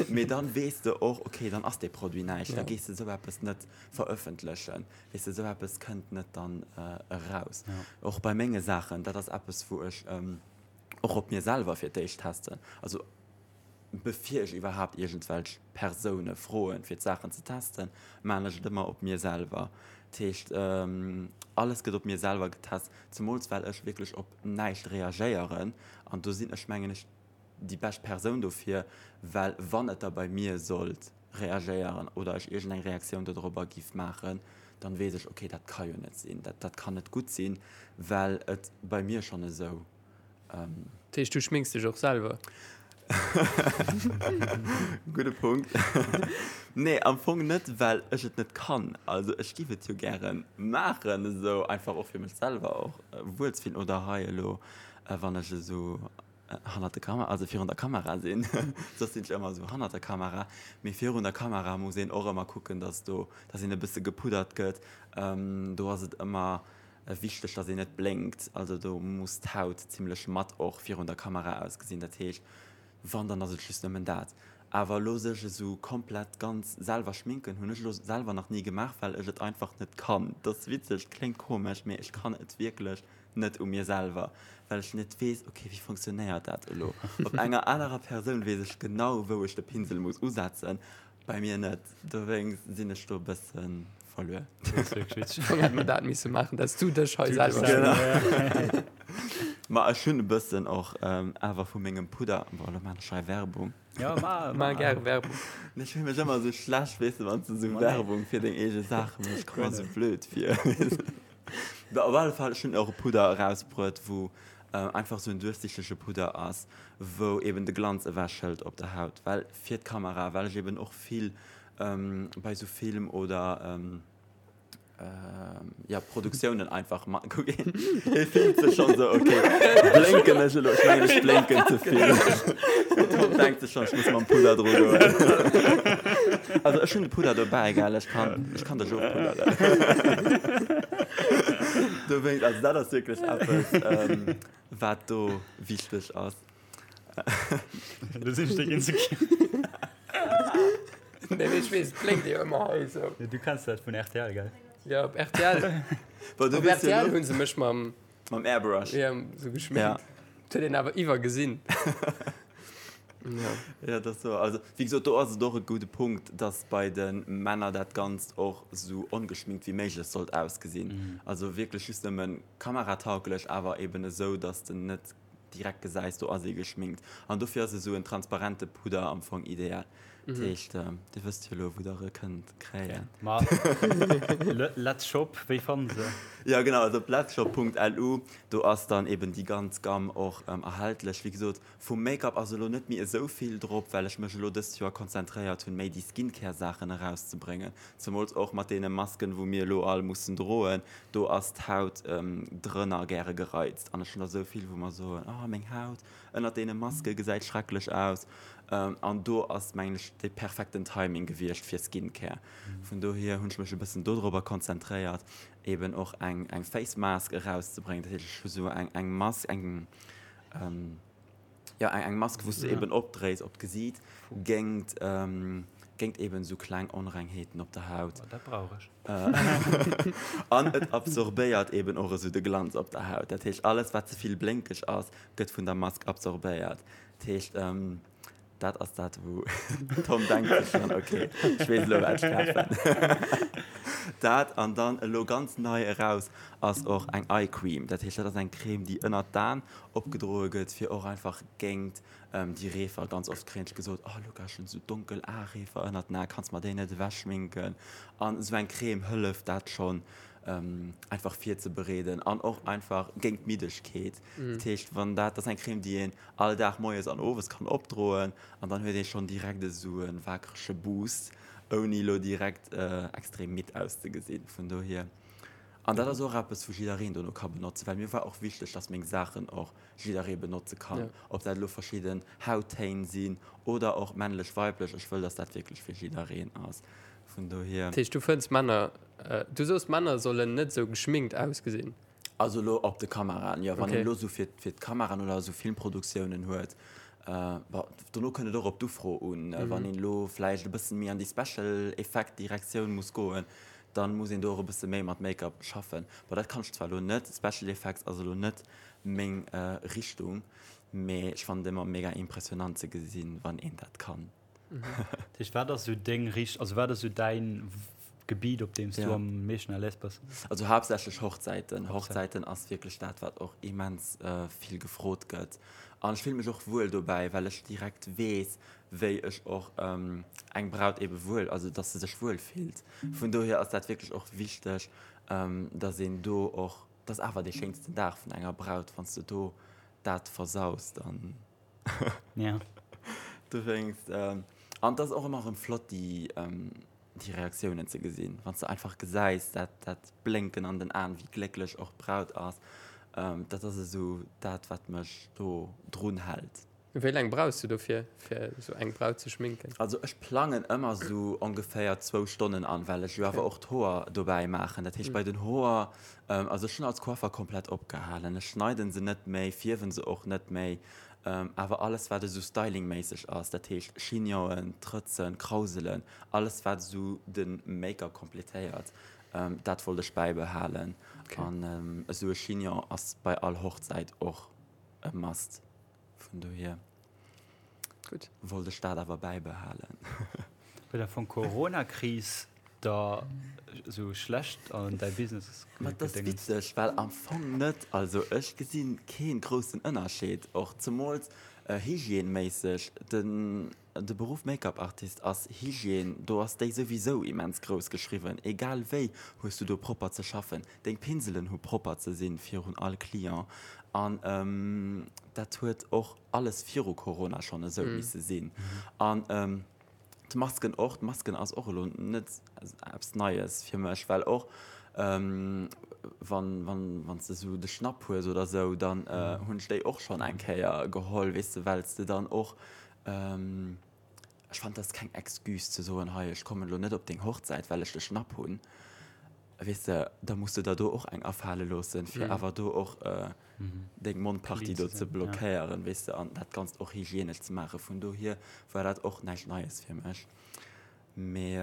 C: Mee dann weess de och, okay, dann ass dee Produit näischt, da gees de esou eppes net verëffentlechen, weess de, esou eppes kënnt net dann eraus. Och bei menge Saachen, dat ass eppes wou ech och op mir selwer fir d'éischt testen, also Bevir ech iwwerhaapt iergendwelch Persoune froen, fir d'Saachen ze testen, maan ech et ëmmer op mir selwer. Dat heescht, alles gëtt op mir selwer getest, zemools well ech wierklech op näischt reagéieren. An do sinn ech, mengen ech, déi bescht Persoun dofir, well wann et da bei mir sollt reagéieren oder ech iergendeng Reaktioun dodrobber giff maachen, dann weess ech, okay, dat ka jo net sinn, dat, dat kann net gutt sinn, well et bei mir schonn esou
B: Dat heescht, du schminks dech och selwer?
C: Gudde Punkt. Nee, am Fong net, well ech et net kann. Also ech giff et jo gäre maachen, esou einfach och fir mech selwer och wuel ze fillen. Oder hei elo, wann ech esou hannert der Kamera, also virun der Kamera sinn, soss sinn ech ëmmer esou hannert der Kamera. Mee virun der Kamera muss een och ëmmer kucken, dass do, dass een e bësse gepuddert gëtt. Do ass et ëmmer Wichteg, dass een net blénkt, also do muss d'Haut zimlech matt och virun der Kamera ausgesinn, dat heescht wann dann ass et just nëmmen dat. Awer elo sech esou komplett ganz selwer schminken hunn ech elo selwer nach ni gemaach, well ech et einfach net kann. Dat ass witzeg, kléngt komesch, mee ech kann et wierklech net u mir selwer, well ech net weess, ok wéi funktionéiert dat elo. Op enger anerer Persoun weess ech genau wou ech de Pinsel muss usetzen, bei mir net, dowéinst sinn ech do e bëssen verluer.
B: Am hätt mer dat misse maachen, dass du dech hei selwer
C: Genau. Ma ech hunn e bëssen och awer vu mengem Pudder, bon elo maan ech hei Werbung.
A: Ja, ma,
B: ma gäre Werbung.
C: Nee, ech fill mech ëmmer esou schlecht, weess de, wann s de esou Werbung fir deng eege Saache méchs, ech komme mer esou blöd vir. Bon, op alle Fall, ech hunn och e Pudder erausbruet, wou einfach esou en duerchsichtege Pudder ass, wou eben de Glanz ewechhëlt op der Haut, well fir d'Kamera, well ech eben och vill bei sou Film oder ja Produktiounen einfach ma kuck een hie fillt sech schonn sou okay blénken ech elo ech mengen ech blénken ze vill Tom denkt sech schonn ech muss mam Pudder dru goen also ech hunn de Pudder dobäi gell ech kann ech kann dech ofpudderen dowéinst also dat ass wierklech eppes wat do wichteg ass.
A: Du sinn ech insecure.
B: Nee, mee ech weess, et blénkt jo ëmmer hei esou.
A: Ja, du kenns dat vun rtl, gell?
B: Ja, op rtl.
C: Bon, du
B: Op
C: weess jo
B: rtl
C: elo.
B: hunn se mech mam,
C: Mam Airbrush.
B: ja, sou geschminkt.
C: Ja.
B: Dat huet een awer iwwergesinn. Ja.
C: Ja, dat ass sou. Also, wéi gesot, do ass et och e gudde Punkt, dass bei de Männer dat Ganzt och sou ongeschminkt wéi méiglech sollt ausgesinn. Also wierklech just nëmmen kameratauglech, awer eben esou, dass de net direkt gesäis, do ass ee geschminkt. An dofir ass esou en transparente Pudder am Fong ideal. Dat heescht, Dir wësst jo elo, wou Der e kënnt kréien.
A: Ma Let's Shop, wéi fanne se?
C: Jo, genau, also op letsshop.lu, do ass dann eben déi ganz Gamme och erhältlech. Wéi gesot, vum Make-up ass elo net méi esou vill drop, well ech mech elo dëst Joer konzentréiert hunn, méi déi Skincare-Saachen erauszebréngen. Zemools och mat deene Masken, wou mir elo all mussen droen, do ass d'Haut drënner gäre gereizt. An ech hunn der esou vill, wou mer soen, Oh, meng Haut ënnert deene Maske gesäit schrecklech aus. An do ass, mengen ech, dee perfekten Timing gewiescht fir Skincare. Vun dohier hunn ech mech e bëssen dodrobber konzentréiert, eben och eng, eng Face Mask erauszebréngen. Dat heescht, ech hu sou eng, eng Mask, eng, jo, eng, eng Mask, wou s du eben opdréis op d'Gesiit géingt, géingt eben sou kleng Onrengheeten op der Haut.
A: Oh, dat brauch ech.
C: An et absorbéiert eben och esou de Glanz op der Haut. Dat heescht, alles, wat ze vill blénkeg ass, gëtt vun der Mask absorbéiert. Dat heescht, dat ass dat, wou Tom denkt sech schonn, ok, ech weess elo, wat ech kafen. Dat an dann elo ganz nei eraus ass och eng Eye Cream. Dat heescht, dat ass eng Crème, déi ënnert d'Aen opgedroe gëtt, fir och einfach géint déi Reefer. Ganz oft kréien ech gesot, oh Luca, ech hunn esou donkel Areefer ënnert den Aen, kanns mer déi net ewechschminken? An esou eng Crème hëlleft dat schonn einfach virzebereeden an och einfach géint d'Middegkeet. Dat heescht, wann dat, dat ass eng Crème, déi een all Dag moies an owes kann opdroen an dann huet ee schonn direkt esou e waakrege Boost, ouni elo direkt extrem midd auszegesinn. Vun dohier, an dat ass och eppes, wou jiddereen dono ka benotzen, well mir war och wichteg, dass meng Saachen och jidderee benotze kann, ob dat elo verschidden Hauttéin sinn oder och männlech, weiblech, ech wëll, dass dat wierklech fir jiddereen ass. Vun dohier.
B: Dat heescht, du fënns Männer, du soos Männer sollen net esou geschminkt ausgesinn?
C: Also elo op de Kameraen, jo. Wann een elo esou fir d'Kameraen oder esou Filmproduktiounen huet, bon, dono kënnt et och op d'Ufro un. Wann een elo vläicht e bëssen méi an déi Special Effect Direktioun muss goen, dann muss een do och e bësse méi mat Make-up schaffen. Bon, dat kann ech zwar elo net, Special Effects ass elo net meng Richtung, mee ech fannen et ëmmer mega impressionant ze gesinn, wann een dat kann.
A: Dat heescht, wat ass esou deng Richt-, also wat ass esou däin Gebiet, op deem s du am meeschten à l'aise bass?
C: Also haaptsächlech Hochzäiten. Hochzäiten ass wierklech dat, wat och immens vill gefrot gëtt. An ech fille mech och wuel dobäi, well ech direkt weess, wéi ech och eng Braut ebe wuel, also dass se sech wuel fillt. Vun dohier ass dat wierklech och wichteg, dass een do och, dat ass awer dee schéinsten Dag vun enger Braut, wann s de do dat versaus, dann.
A: Ja.
C: Dowéinst, an et ass och ëmmer erëm flott, déi, déi Reaktiounen ze gesinn, wann s de einfach gesäis, dat, dat Blénken an den Aen, wéi glécklech och d'Braut ass. Dat ass esou dat, wat mech do drun hält.
B: Wéi laang brauchs du dofir, fir esou eng Braut ze schminken?
C: Also ech plangen ëmmer esou ongeféier zwou Stonnen an, well ech jo awer och d'Hoer dobäi maachen. Dat heescht, bei den Hoer Also ech hunn als Coiffer komplett opgehalen. Ech schneiden se net méi, fierwen se och net méi, awer alles wat esou stylingméisseg ass, dat heescht Chignonen, Trëtzen, Krauselen, alles wat esou de Make-up kompletéiert, dat wollt ech bäibehalen. An esou e Chignon ass bei all Hochzäit och e Must. Vun dohier wollt ech dat awer bäibehalen.
A: Huet am Fong d'Corona-Kris der esou schlecht an däi Business
C: Ma et ass witzeg, well am Fong net. Also ech gesi kee groussen Ënnerscheed, och zemools hygièneméisseg. Den de Beruff Make-up Artist ass Hygiène, do ass déi souwisou immens grouss geschriwwen. Egal wéi hues du do propper ze schaffen, deng Pinselen hu propper ze sinn virun all Client an dat huet och alles viru Corona schonn esou misse sinn. An D'Masken och, d'Masken ass och elo net eppes Neies fir mech, well och wann, wann, wann s de esou de Schnapp hues oder esou, dann hunn ech déi och schonn eng Kéier geholl, weess de, well s de dann och, ech fannen, dat ass keng Excuse ze soen, hei ech kommen elo net op deng Hochzäit, well ech de Schnapp hunn, weess de, da muss de der do och eng afale loossen, fir awer do och deng Mondpartie do ze blockéieren, weess de, an dat Ganzt och hygienesch ze maachen. Vun dohier war dat och näischt Neies fir mech. Mee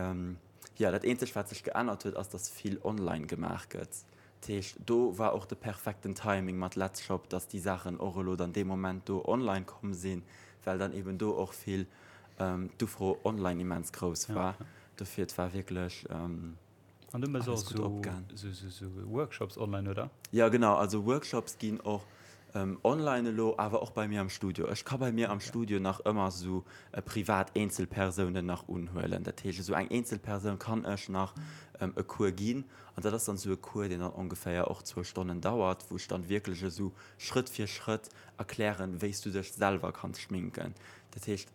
C: jo, dat eenzegt, wat sech geännert huet, ass, dass vill online gemaach gëtt. Dat heescht, do war och de perfekten Timing mat Letzshop, dass déi Saachen och elo dann dee Moment do online komm sinn, well dann eben do och vill d'Ufro online immens grouss war. Dofir, et war wierklech.
A: An du mëss och sou Workshops online, oder?
C: Jo genau, also Workshops ginn och. Online elo, awer och bei mir am Studio. Ech ka bei mir am Studio nach ëmmer esou privat Eenzelpersounen nach unhuelen. Dat heescht, esou eng Eenzelpersoun kann ech nach e Cours ginn. An dat ass dann esou e Cours, deen dann ongeféier och zwou Stonnen dauert, wou ech dann wierklech esou Schrëtt fir Schrëtt erklären, wéi s du dech selwer kanns schminken. Dat heescht,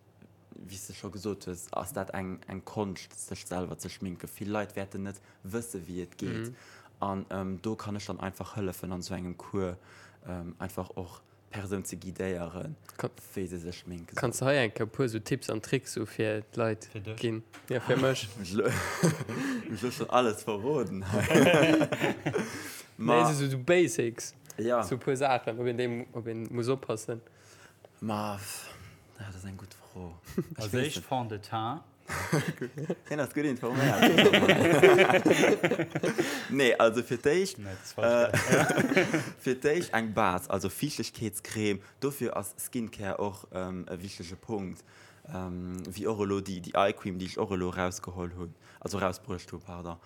C: wéi s de scho gesot hues, ass dat eng, eng Konscht, sech selwer ze schminken. Vill Leit wäerten net wësse wéi et geet. An do kann ech dann einfach hëllefen an esou engem Cours einfach och d'Persoun ze guidéieren, wéi se sech schminke
B: soll. Kanns de hei eng Kéier e puer esou Tipps an Tricks sou fir d'Leit ginn? Jo, fir mech.
C: Ech hu schonn alles verroden hei.
B: Nee, esou sou Basics. Ja. Sou e puer Saachen, op een déi, op een muss oppassen.
C: Ma dat ass eng gutt Fro.
A: Als éischt Fond de teint.
C: Hien ass gutt informéiert. Nee, also fir d'éischt, fir d'éischt eng Base, also Fiichtegkeetscreme. Dofir ass Skincare och e wichtege Punkt. Wéi och elo déi Eye Cream, déi ech och elo erausgeholl hunn, also erausbruecht hunn, pardon.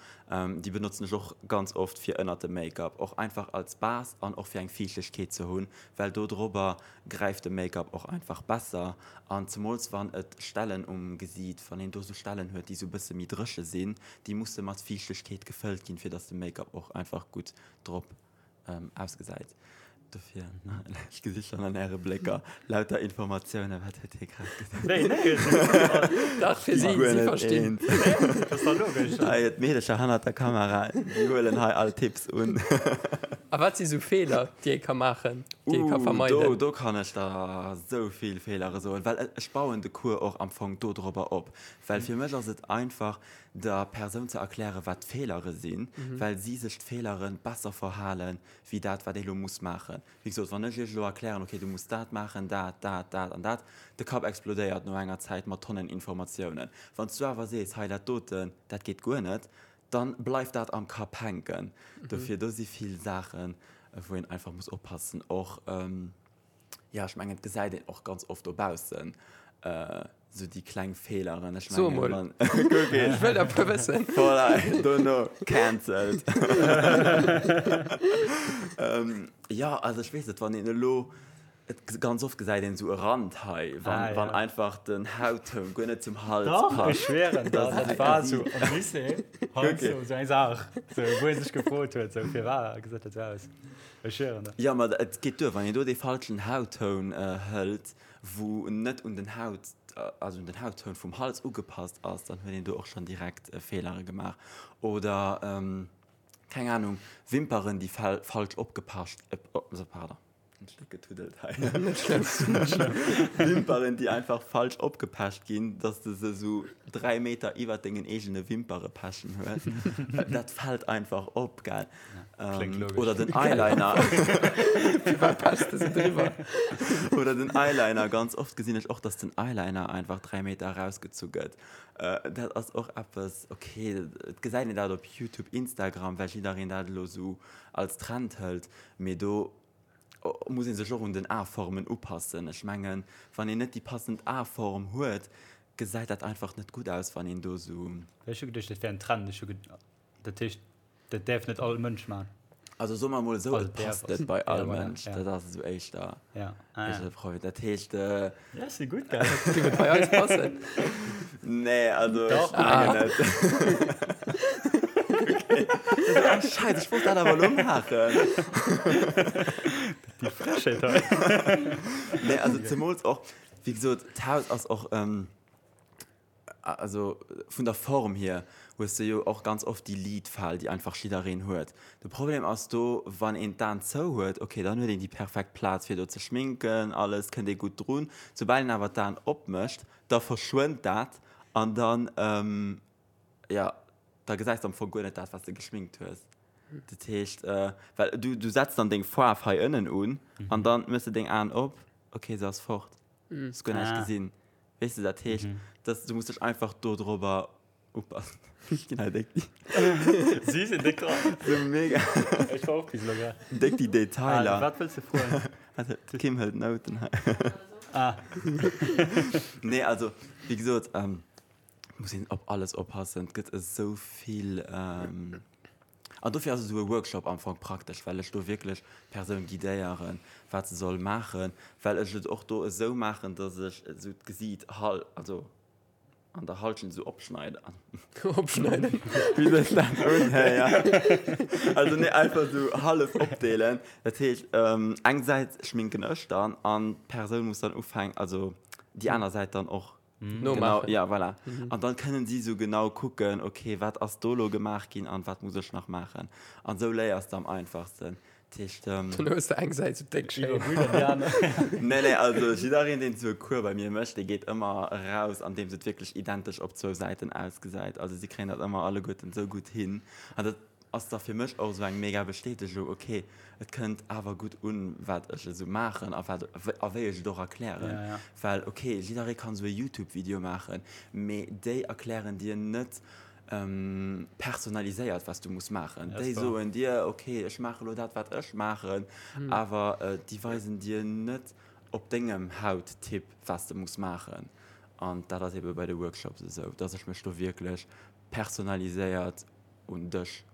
C: Déi benotzen ech och ganz oft fir ënnert dem Make-up, och einfach als Base an och fir eng Fiichtegkeet ze hunn, well do drobber gräift de Make-up och einfach besser an zemools wann et Stellen um Gesiit, wann een do sou Stellen huet déi sou bësse méi dréche sinn, déi musse mat Fiichtegkeet gefëllt ginn, fir dass de Make-up och einfach gutt drop ausgesäit. Dofir, ech gesi schonn an äre Blécker lauter Informatiounen, wat huet hie grad gesot?
A: Nee, nee,
B: Dach, fir si, si verstinn.
A: Dat ass dach logesch.
C: Hei, d'Meedecher hannert der Kamera, déi huelen hei all Tipps un.
B: A wat si sou Feeler, déi ee ka maachen? déi ee ka vermeiden?
C: Do, do kann ech der esou vill Feelere soen, well ech bauen de Cours och am Fong dodrobber op. Well fir mech ass et einfach, der Persoun ze erklären, wat d'Feelere sinn, well si sech d'Feelere besser verhalen, wéi dat, wat ee lo muss maachen. Wéi gesot, wann ech iech elo erklären, okay, du muss dat maachen, dat, dat, dat an dat, de Kapp explodéiert no enger Zäit mat Tonnen Informatiounen. Wann s du awer sees, hei dat doten, dat geet guer net, dann bleift dat am Kapp hänken. Dofir, do si vill Saachen, wou een einfach muss oppassen. Och, jo, ech mengen, et gesäit een och ganz oft dobaussen esou déi kleng Feeleren.
B: Ech So mengen, emol. wann, kuck een. Ech wëll der e puer wëssen.
C: Voilà, dono cancelled. Jo, also ech weess net, wann een elo Et ganz oft gesäit een esou e Rand hei, wann, ah, ja. wann einfach den Hauttoun guer net zum Hals
A: Doch, passt. Ech schwéren der, dat war sou am Lycée, halt okay. sou eng Saach, sou, wou ee sech gefrot huet, sou firwat gesäit dat sou aus. Ech schwéren der.
C: Ja, ma et geet duer, wann een do dee falschen Hauttoun hëlt, wou net un den Haut, also un den Hauttoun vum Hals ugepasst ass, dann huet een do och schonn direkt Feelere gemaach. Oder, keng Ahnung, Wimperen, déi falsch opgepascht, pardon. En Stéck getuddelt hei.
B: Net schlëmm, net schlëmm.
C: Wimperen, déi einfach falsch opgepecht ginn, dass de se sou 3 Meter iwwert dengen eegene Wimpere pechen hues. Dat fält einfach op, gell?
A: Kléngt logesch.
C: Oder den Eyeliner.
B: Firwat pechs de se driwwer?
C: Oder den Eyeliner. Ganz oft gesinn ech och, dass den Eyeliner einfach 3 Meter erausgezu gëtt. Dat ass och eppes, okay, et gesäit een dat op YouTube, Instagram, well jiddereen dat elo sou als Trend hëlt, mee do muss ee sech och un den Aformen upassen. Ech mengen, wann een net déi passend Aform huet, gesäit dat einfach net gutt aus, wann een do sou.
A: Ech hu geduecht, dat wär en Trend. Ech hu dat heescht, dat däerf net all Mënsch maachen.
C: Also soe mer emol esou, et passt net bei all Mënsch. Dat ass esou éischter de Problem. Dat heescht.
A: Ja, si gutt, gell?
B: Géif et bei eis passen?
C: Nee, also ech mengen net. Okay. Scheiße, ech wollt dat awer elo maachen.
A: Déi Frechheet hei.
C: Nee, also zemools och, wéi gesot, d'Haus ass och, also vun der Form hier hues de jo och ganz oft déi Lidfal, déi einfach jiddereen huet. De Problem ass do, wann een d'Aen zou huet, okay, dann huet een déi perfekt Plaz fir do ze schminken, alles, kënnt ee gutt drun. Soubal een awer d'Aen opmécht, da verschwënnt dat an dann, jo, da gesäis de am Fong guer net dat, wat s de geschminkt hues. Dat heescht, well du, du setz dann deng Faarf hei ënnen un an dann méchs de deng Aen op, okay, se ass fort, hues guer näischt gesinn. Weess de, dat heescht, dass du muss dech einfach dodrobber upassen. Ech ginn hei déck déi.
A: Si sinn déck dran.
C: Sou mega.
A: Ech war och bis elo grad.
C: Déck déi Detailer.
A: Ah, wat wëlls de froen?
C: Also, d'Kim hëlt Nouten hei.
A: Ah.
C: Nee, also, wéi gesot, muss een op alles oppassen. Et gëtt esou vill. An dofir ass esou e Workshop am Fong praktesch, well ech do wierklech d'Persoun guidéieren, wat se soll maachen, well ech et och do esou maachen, dass ech esou d'Gesiit hal, also an der Halschent esou opschneiden.
B: Opschneiden?
C: Wéi sech dat unhéiert. Also nee, einfach esou hallef opdeelen. Dat heescht, eng Säit schminken ech dann an d'Persoun muss dann ufänken, also déi aner Säit dann och
B: Nomaachen.
C: Genau, ja, voilà. An dann kënnen si sou genau kucken, okay, wat ass do lo gemaach ginn an wat muss ech nach maachen. An sou léiers de am einfachsten. Dat heescht.
B: Dann hues de eng Säit sou déck schéin.
C: Nee, nee, also jiddereen, deen sou e Cours bei mir mécht, dee geet ëmmer eraus, andeems et wierklech identesch op zwou Säiten ausgesäit. Also si kréien dat ëmmer alleguerten sou gutt hin. An dat ass da fir mech och esou eng mega Bestätegung, ok, et kënnt awer gutt un, wat ech esou maachen a wat a wéi ech et och erklären.
A: Ja, ja.
C: Well ok, jidderee kann esou e Youtube-Video maachen, mee déi erklären dir net personaliséiert, wat s du muss maachen.
A: Ja,
C: Déi
A: ass wahr.
C: soen dir, ok, ech maache lo dat, wat ech maachen, awer déi weisen dir net op dengem Hauttyp, wat s de muss maachen. An dat ass ebe bei de Workshops esou, dass ech mech do wierklech personaliséiert un dech.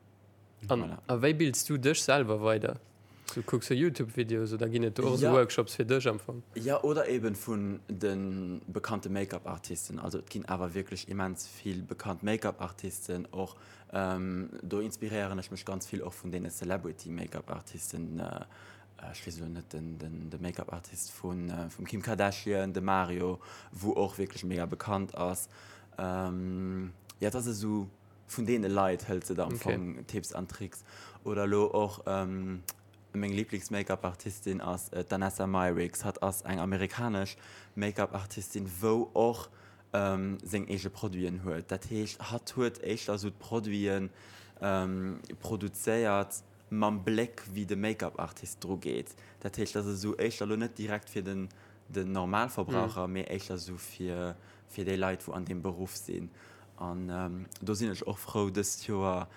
B: An
C: Voilà.
B: a wéi bilds du dech selwer weider? So kucks du Youtube-Videos oder ginn et do och sou
C: Ja.
B: Workshops fir dech am Fong?
C: Ja, oder eben vun de bekannte Make-up-Artisten. Also et ginn awer wierklech immens vill bekannt Make-up-Artisten och. Do inspiréieren ech mech ganz vill och vun deene Celebrity-Make-up-Artisten. Ech weess elo net den, den, de Make-up-Artist vun, vum Kim Kardashian, de Mario, wou och wierklech mega bekannt ass. Ja, et ass esou. Vun deene Leit hëls de der am Fong Tipps an Tricks. Oder elo och meng Liiblings-Make-up-Artistin ass d'Danessa Myricks. Hatt ass eng amerikanesch Make-up-Artistin, wou och seng eege Produiten huet. Dat heescht, hatt huet éischter esou d'Produite produzéiert mam Bléck, wéi de Make-up-Artist dru geet. Dat heescht, dat ass esou éischter elo net direkt fir den Normalverbraucher, mee éischter esou fir déi Leit, wou an deem Beruff sinn. An do sinn ech och frou, dëst Joer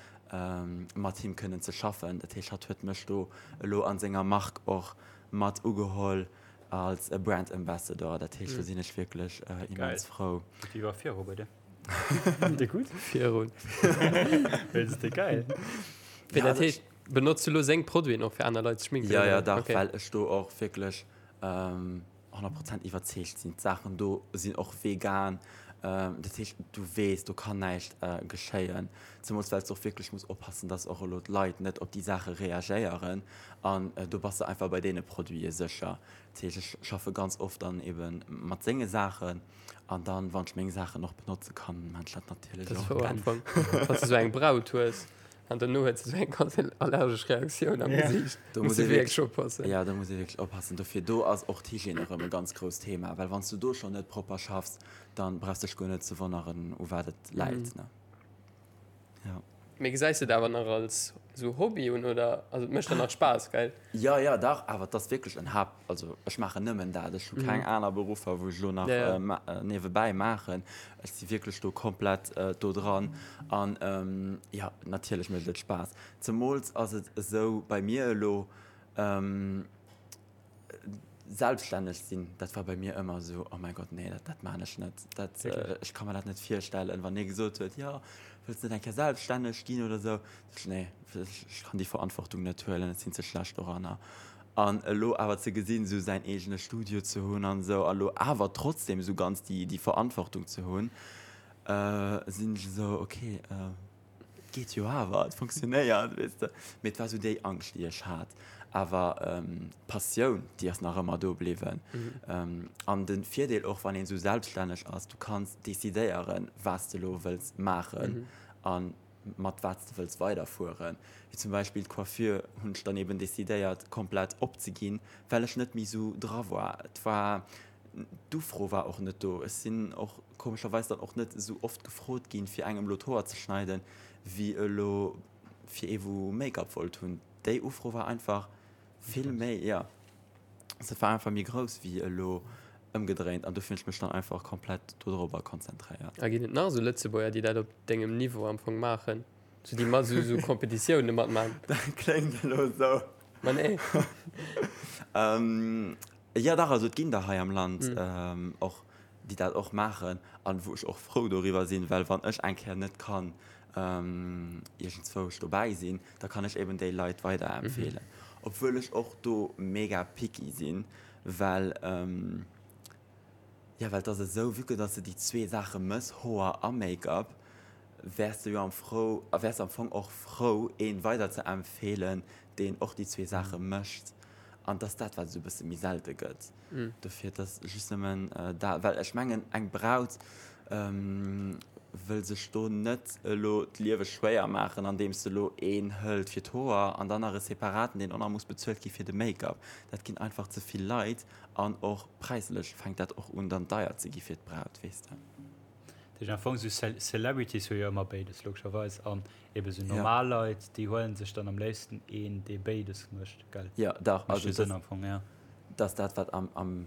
C: mat him kënnen ze schaffen. Dat heescht, hatt huet mech do elo a senger Mark och mat ugeholl als Brand Ambassador. Dat heescht, do sinn ech wierklech immens frou.
A: Geet iwwer viru bei dir? Dir gutt?
B: Virun.
A: Dat ass geil.
B: Wéi dat heescht, benotz du elo seng Produiten och fir aner Leit ze schminken?
C: Jo, jo, dach,
B: Okay.
C: well ech do och wierklech 100 Prozent iwwerzeegt sinn. D'Saachen do sinn och vegan, dat heescht du weess, do kann näischt geschéien. Zemools well s de och wierklech muss oppassen, dass och elo d'Leit net op déi Saache reagéieren an do bass de einfach bei deene Produite sécher. Dat heescht ech schaffe ganz oft dann ebe mat senge Saachen an dann, wann ech meng Saachen och benotze kann, maan ech dat natierlech
B: Dat ass
C: och.
B: wouer am Fong, wann s de sou eng Braut hues. An dono huet se sou eng ganz allergesch Reaktioun am Gesiicht.
C: Do
B: muss
C: muss
B: ee wierklech oppassen.
C: Ja, do muss ee wierklech oppassen. Dofir do ass och d'Hygiène erëm e ganz grousst Thema, well wann s du do schonn net propper schaffs, dann brauchs dech guer net ze wonneren, u wat et läit, ne? Ja.
B: Mee gesäis de et awer nach als sou Hobby un oder? Also et mécht der nach Spaass, gell?
C: Jo, jo, dach, awer et ass wierklech en Haupt, also ech maachen nëmmen dat, ech hu keng aner Beruffer, wou ech elo nach niewebäi maachen. Ech si wierklech do komplett do dran an jo, natierlech mécht et Spaass. Zemools ass et esou bei mir elo, Selbststänneg sinn, dat war bei mir ëmmer esou, oh mäi Gott, nee, dat, dat maan ech net, dat, ech ka mer dat net virstellen. Wann ee gesot huet, jo, wëlls net eng Kéier selbststänneg ginn oder esou, sot ech, nee, ech kann déi Verantwortung net huelen, ech sinn ze schlecht doranner. An elo awer ze gesinn, esou säin eegene Studio ze hunn an esou, a lo awer trotzdem esou ganz déi, déi Verantwortung ze hunn, sinn ech esou, okay, Et geet jo awer, et funktionéiert, weess de. Mee et war esou déi Angscht, déi ech hat. Awer d'Passioun, déi ass nach ëmmer do bliwwen. An de Virdeel och, wann een esou selbststänneg ass, du kanns decidéieren, wat s de elo wëlls maachen a mat wat s de wëlls weiderfueren. Wéi zum Beispill d'Coiffure hunn ech dann eben decidéiert, komplett opzeginn, well ech net méi esou dra war. Et war D'Ufro war och net do. Ech sinn och komescherweis dann och net esou oft gefrot ginn, fir engem elo d'Hoer ze schneiden, wéi elo fir ee wou Make-up wollt hunn. Déi Ufro war einfach vill méi, jo, se war einfach méi grouss wéi elo ëmgedréint an dofir hunn ech mech dann einfach komplett dodrober konzentréiert.
B: A ginn et nach esou Lëtzebuerger, déi dat op dengem Niveau am Fong maachen, sou déi mat esou esou Competitioune matmaachen?
C: Dat kléngt elo esou.
B: Ma nee.
C: Jo dach, also et ginn der hei am Land och, déi dat och maachen an wou ech och frou doriwwer sinn, well wann ech eng Kéier net kann. Iergendzwousch dobäi sinn, da kann ech eben déi Leit weiderempfeelen. Obwuel ech och do mega picky sinn, well, jo, well et ass esou, vue que dass de déi zwee Saache mëss, Hoer a Make-up, wäers de jo am frou, wäers de am Fong och frou, een weiderzeempfeelen, deen och déi zwee Saache mécht. An et ass dat, wat esou e bësse méi selte gëtt. Dofir, et ass just nëmmen dat, well ech mengen, eng Braut wëll sech do net elo d'Liewe schwéier maachen, andeems se elo een hëlt fir d'Hoer an dann nach e separaten, deen och nach muss bezuelt gi fir de Make-up. Dat ginn einfach ze vill Leit an och präislech fänkt dat och un dann deier ze gi fir d'Braut, weess de.
A: Dat heescht am Fong esou Celebrities hu jo ëmmer béides logescherweis an ebe sou normal Leit déi huelen sech dann am léifsten een dee béides mécht, gell?
C: Jo dach, also dat am Fong, ja. Dat ass dat wat am am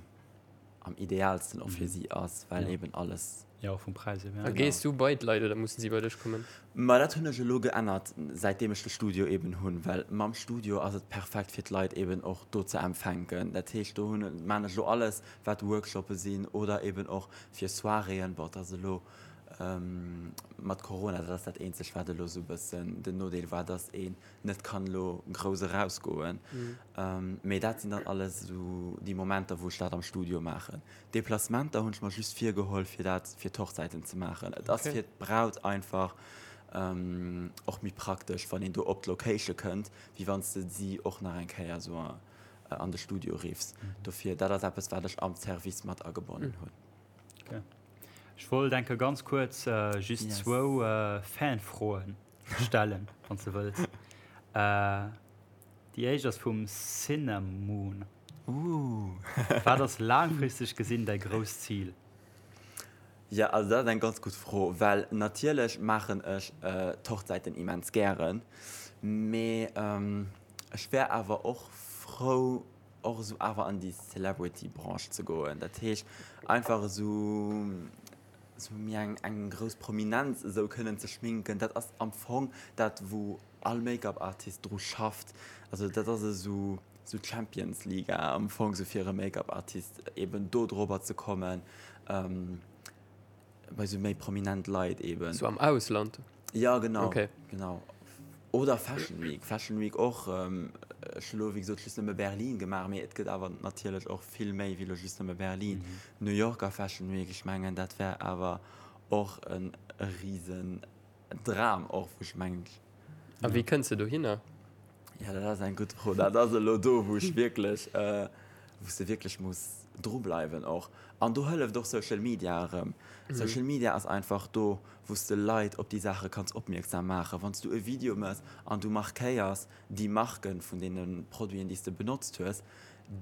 C: am idealsten och fir si ass, well eben alles.
A: Jo och vum Präis
B: hier, ja. A gees du bei d'Leit oder mussen si bei dech kommen?
C: Ma dat hunn ech elo geännert säitdeem ech de Studio eben hunn, well mam Studio ass et perfekt fir d'Leit eben och do ze empfänken. Dat heescht do hunn maan ech elo alles wat Workshoppe sinn oder eben och fir Soiréeën. Bon, et ass elo mat Corona, dat ass dat eenzegt wat elo esou e bëssen den Nodeel war, dass een net kann elo grouss erausgoen. Mee dat sinn dann alles esou déi Momenter wou ech dat am Studio maachen. Deplacementer hunn ech mer just virgeholl fir dat fir d'Hochzäiten ze maachen. Et ass fir d'Braut einfach och méi praktesch wann een do op d'Location kënnt, wéi wann s de si och nach eng Kéier esou an de Studio riffs. Dofir, dat ass eppes, wat ech am Service mat agebonnen hunn.
A: Okay. Ech wollt enke ganz kuerz just zwou Fanfroen stellen, wann s de wëlls. Déi éischt ass vum Cinemoon. Wat ass laangfristeg gesinn däi grousst Zil?
C: Jo, also dat ass eng ganz gutt Fro, well natierlech maachen ech d'Hochzäiten immens gären, mee Ech wär awer och frou och esou awer an déi Celebrity Branche ze goen. Dat heescht einfach esou esou méi eng eng grouss Prominenz esou kënnen ze schminken. Dat ass am Fong dat wou all Make-up Artist dru schafft. Also dat ass esou esou d'Champions Liga am Fong esou fir e Make-up Artist eben do drobber ze kommen. Bei sou méi prominent Leit eben.
B: Sou am Ausland?
C: Ja, genau. Okay. Genau. Oder Fashion Week. Fashion Week och. Ech hu lo, wéi gesot, just nëmme Berlin gemaach, mee et gëtt awer natierlech och vill méi wéi lo just nëmme Berlin. New Yorker Fashion Week, ech mengen, dat wär awer och e risen Dram och, wou ech mengen.
B: A wéi kënns de dohinner?
C: Ja, dat ass eng gutt Fro. Dat ass elo do, wou ech wierklech, wou s de wierklech muss drubleiwen och. An do hëlleft och Social Media erëm. Social Media ass einfach do, wou s de Leit op déi Saache kanns opmierksam maachen. Wann s du e Video mëss an du markéiers déi Marke vun deene Produiten, déi s de benotzt hues,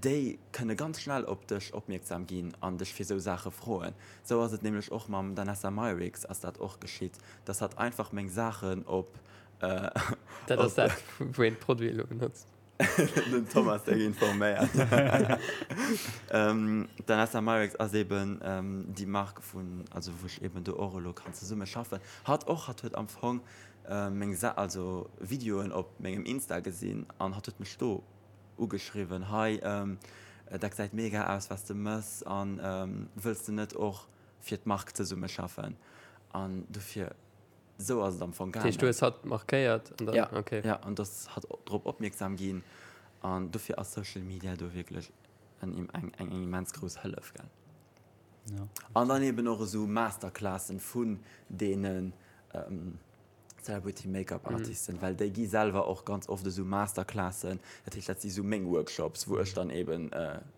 C: déi kënne ganz schnell op dech opmierksam ginn an dech fir esou Saache froen. Esou ass et nämlech och mam Danessa Myricks ass dat och geschitt, dass hatt einfach meng Saachen op.
B: Dat ass dat, wou een d'Produite elo benotzt.
C: Den Thomas déck informéiert. D'Danessa Myricks ass eben déi Mark vun, also wou ech eben do och elo kann zesumme schaffen. Hatt och, hatt huet am Fong meng Sa, also Videoen op mengem Insta gesinn an hatt huet mech do ugeschriwwen, hei dat gesäit mega aus wat s de mëss an wëlls de net och fir d'Mark zesumme schaffen an dofir esou ass et am Fong
B: gaangen. Dat heescht du hues hatt markéiert
C: an dann, ja, okay. Ja, an dass hatt drop opmierksam ginn an dofir ass Social Media do wierklech eng eng eng immens grouss Hëllef gell. Ja. An dann eben och esou Masterclassen vun deenen Celebrity Make-up Artisten, well déi gi selwer och ganz oft esou Masterclassen, dat heescht dat si sou meng Workshops, wou ech dann eben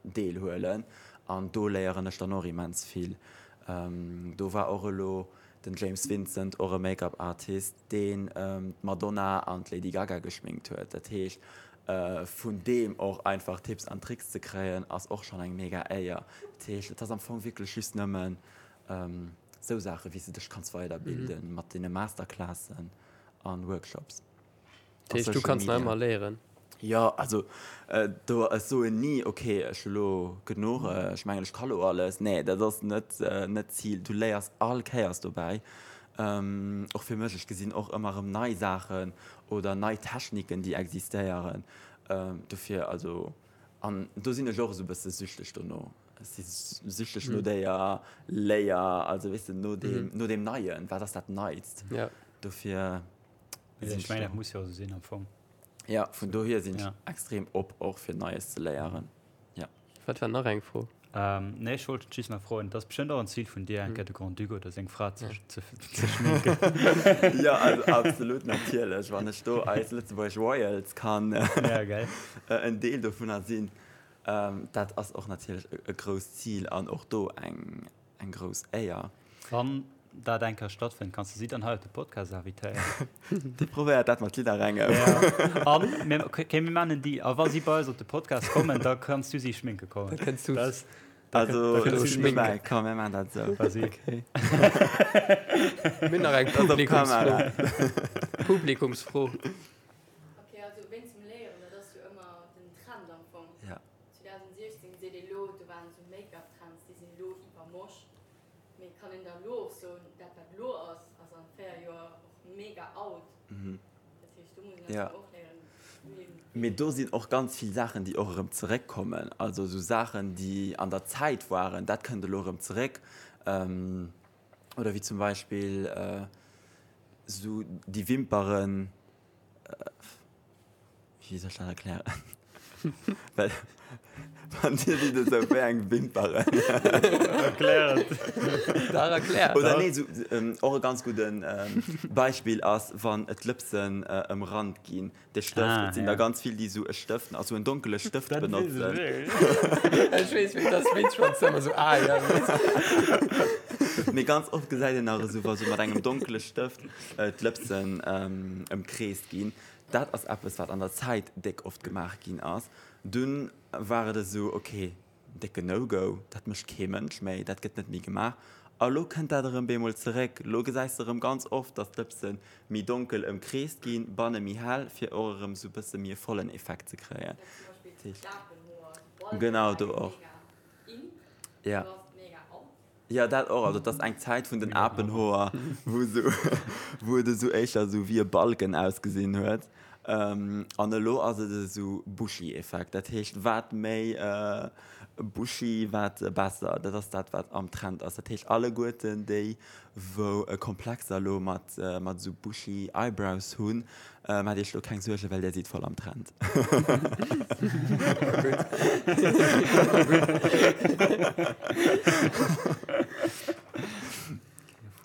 C: deelhuelen an do léieren ech dann och immens vill. Do war och elo den James Vincent, och e Make-up Artist, deen d'Madonna an d'Lady Gaga geschminkt huet. Dat heescht vun deem och einfach Tipps an Tricks ze kréien ass och schonn eng mega Éier. Dat heescht et ass am Fong wierklech just nëmmen Sou Saachen, wéi s de dech kanns weiderbilden mat deene Masterclassen an Workshops.
B: Dat heescht, du kanns nach ëmmer léieren?
C: Jo, also do, ech soen ni, ok, ech hu lo genuch, ech mengen, ech ka lo alles. Nee, dat ass net net d'Zil. Du léiers all Kéiers dobäi. Och fir mech, ech gesinn och ëmmer erëm nei Saachen oder nei Techniken, déi existéieren. Dofir, also, an do sinn ech och esou e bësse süchteg dono. Ech si süchteg no déier Léier, also weess de, no deem, no deem Neien. Wat ass dat Neist?
B: Ja.
C: Dofir
A: sinn ech. Ech mengen, dat muss jo esou sinn am Fong.
C: Ja, vun dohier sinn ech extrem op och fir Neies ze léieren. Ja.
B: Wat war nach eng Fro?
A: Nee, ech wollt just nach froen, et ass bestëmmt och en Zil vun dir, eng Kéier de Grand-Duc oder seng Fra ze schminken.
C: Jo, also absolut, natierlech. Wann ech do eis lëtzebuergesch Royals kann en Deel dovunner sinn, dat ass och natierlech e grousst Zil an och do eng Eng grouss Éier.
A: Wann dat eng Kéier stattfënnt, kanns de si dann hei op de Podcast invitéieren.
C: Dir probéiert dat mat jidderengem.
A: Ja. An mir, okay, mir maachen en Deal. A wa si bei eis op de Podcast kommen, da kanns du si schminke kommen.
B: Da kënns du.
C: Das, da,
B: also,
C: da kënns du schminken. Komm, mir maachen dat esou.
A: Vas-y.
C: Okay.
B: Mir hunn nach eng Publikumsfro. Publikumsfro.
D: Okay, also wéinst dem Léieren, dat ass jo ëmmer den Trend am Fong.
C: Ja.
D: 2016 seet ee lo, do waren esou Make-up-Trends, déi sinn elo iwwermosch. Mee kann een da lo och soen, dat wat lo ass, ass an 4 Joer och mega out? Dat heescht, do muss een einfach och léieren, wéi een.
C: Mee do sinn och ganz vill Saachen, déi och erëm zeréckkommen. Also esou Saachen, déi an der Zäit waren, dat kënnt elo erëm zeréck. Oder wéi zum Beispill esou déi Wimperen. Wéi soll ech dat erklären? Well wann Dir sidd esou wéi eng Wimperen.
A: Erklär et.
B: Dach, erklär.
C: Oder nee, esou och e ganz gudden Beispill ass, wann d'Lëpsen ëmrannt ginn. De Stëft, et sinn der ganz vill, déi esou e Stëft, also en donkele Stëft benotzen.
B: Dat weess ech wierklech. Ech weess, wéi dat ass, wéi schonn ëmmer esou, ah ja.
C: Mee ganz oft gesäit een nach esou, wa sou mat engem donkele Stëft d'Lëpsen ëmkreest ginn. Dat ass eppes, wat an der Zäit déck oft gemaach ginn ass. Dunn war et esou, ok, décken No-Go, dat mécht kee Mënsch méi, dat gëtt net méi gemaach. A lo kënnt dat erëm bemol zeréck. Lo gesäis de erëm ganz oft, datt d'Lëpse méi donkel ëmkreest ginn, banne méi hell, fir och erëm esou e bësse méi e vollen Effekt ze kréien. Genau, do och. Ja. Jo, dat och. Also, et ass eng Zäit vun den Apenhoer, wou esou, wou et esou éischter esou wéi e Balken ausgesinn huet. An elo ass et esou Bushy-Effekt. Dat heescht, wat méi bushy, wat besser. Dat ass dat, wat am Trend ass. Dat heescht, alleguerten déi, wou Komplexer elo mat, mat esou bushy Eyebrows hunn, Maacht iech lo keng Suergen, well där sidd voll am Trend.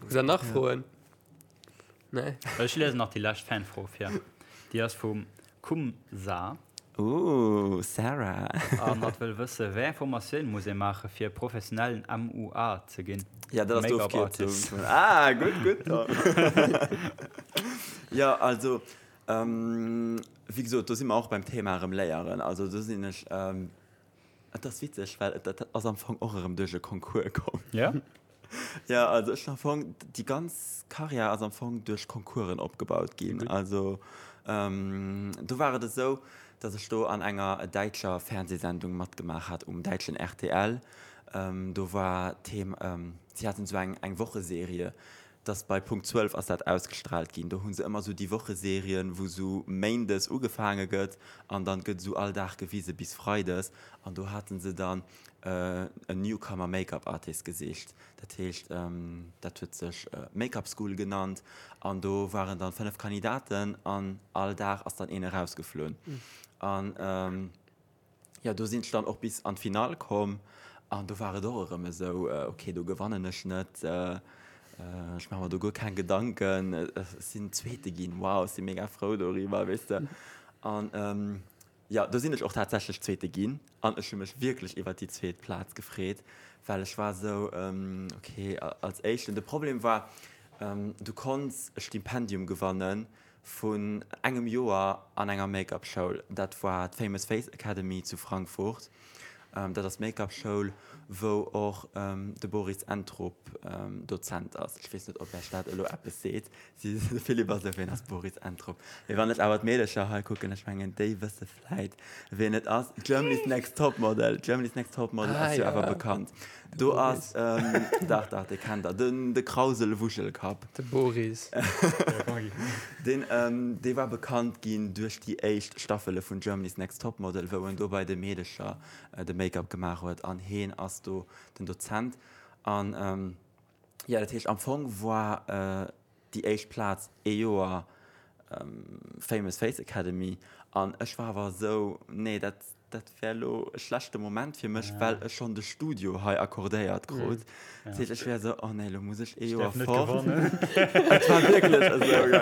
B: Hutt der nach Froen? Nee?
A: Ech liesen nach déi lescht Fanfro vir. Déi ass vum Kumsa.
C: Ooh, Sarah.
A: An hatt wëll wësse, wéi eng Formatioun muss ee maache fir professionellen MUA ze ginn?
C: Ja, dat ass
A: Make-up
C: d'Ofkierzung
A: Artist.
C: vun. Ah, gutt, gutt, Tom. Jo, also, wéi gesot, do si mer och beim Thema erëm léieren. Also do sinn ech, et ass witzeg, well dat ass am Fong och erëm duerch e Concours komm.
A: Ja?
C: Ja, also ech am Fong, déi ganz Karriär ass am Fong duerch Concoursen opgebaut ginn. Also do war et esou, datt ech do an enger däitscher Fernsehsendung matgemaach hat um däitschen rtl. Do war d'Thema, si haten esou eng eng Wocheserie, datt bei Punkt 12 ass dat ausgestrahlt ginn. Do hu se ëmmer esou déi Wocheserien, wou esou méindes ugefaange gëtt an dann gëtt esou all Dag gewise bis freides. An do hate se dann en Newcomer Make-up Artist gesicht. Dat heescht, dat huet sech Make-up School genannt an do waren dann 5 Kandidaten an all Dag ass dann een erausgeflunn. An jo, do sinn ech dann och bis an d'Finall komm an do war et och erëm esou, ok, do gewannen ech net, ech maache mer do guer keng Gedanken, ech sinn Zweete ginn, wow, ech si mega frou doriwwer, weess de. An Jo, do sinn ech och tatsächlech Zweete ginn an ech hu mech wierklech iwwert déi zweet Plaz gefreet, well ech war esou, ok, als Éischten. De Problem war, du konns e Stipendium gewanne vun engem Joer an enger Make-up-Schoul. Dat war d'Famous Face Academy zu Frankfurt. Dat ass d'Make-up-Schoul, wou och de Boris Entrup Dozent ass. Ech weess net, ob Iech dat elo eppes seet. Si, de Philippe ass esou, Ween ass Boris Entrup? Mee wann ech awer d'Meedercher hei kucken, ech mengen, déi wësse vläit, ween et ass. Germany's Next Topmodel, Germany's Next Topmodel ass jo awer bekannt. Do ass, dach, dach, dee kennt der, den, de Krauselwuschelkapp.
B: De Boris.
C: Deen, dee war bekannt ginn duerch déi éischt Staffele vun Germany's Next Topmodel, wou en do bei de Meedecher de Make-up gemaach huet. An heen ass do den Dozent. An, jo, dat heescht, am Fong war. déi éischt Plaz ee Joer Famous Face Academy an ech war awer esou, nee dat dat wär elo e schlechte Moment fir mech, well ech schonn de Studio hei accordéiert krut. Dat heescht, ech wär esou, oh nee, elo muss ech ee Joer fort. Et war wierklech esou, gell.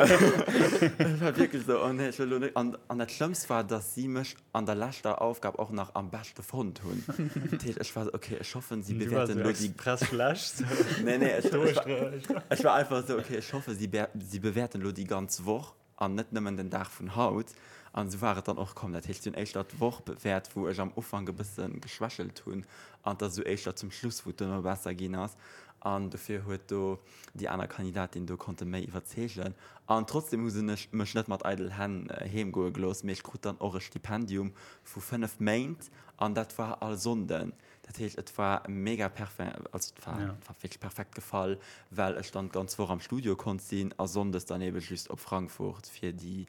C: Et war wierklech esou, oh nee, ech wëll elo net. An, an dat Schlëmmst war, dass si mech an der leschter Aufgab och nach am beschte fonnt hunn. Dat heescht, ech war esou, okay, ech hoffen, si bewäerten elo déi.
A: Express schlecht.
C: Nee, nee, ech, ech war, ech war einfach esou, okay, ech hoffe, si, si bewäerten elo déi ganz Woch an net nëmmen den Dag vun haut. An esou war et dann och komm. Dat heescht, si hunn éischter d'Woch bewäert, wou ech am Ufank e bësse geschwächelt hunn, an et ass esou éischter zum Schluss, wou et duerno besser ginn ass. An dofir huet do déi aner Kandidatin do konnte méi iwwerzeegen. An trotzdem hu se mech net mat eidel Hänn heem goe gelooss, mee ech krut dann och e Stipendium vu 5 Méint an dat war all Sonnden. Dat heescht, et war mega perfe, also et war, et war wierklech perfekt gefall, well ech dann d'ganz Woch am Studio konnt sinn a sonndes dann ebe just op Frankfurt fir déi,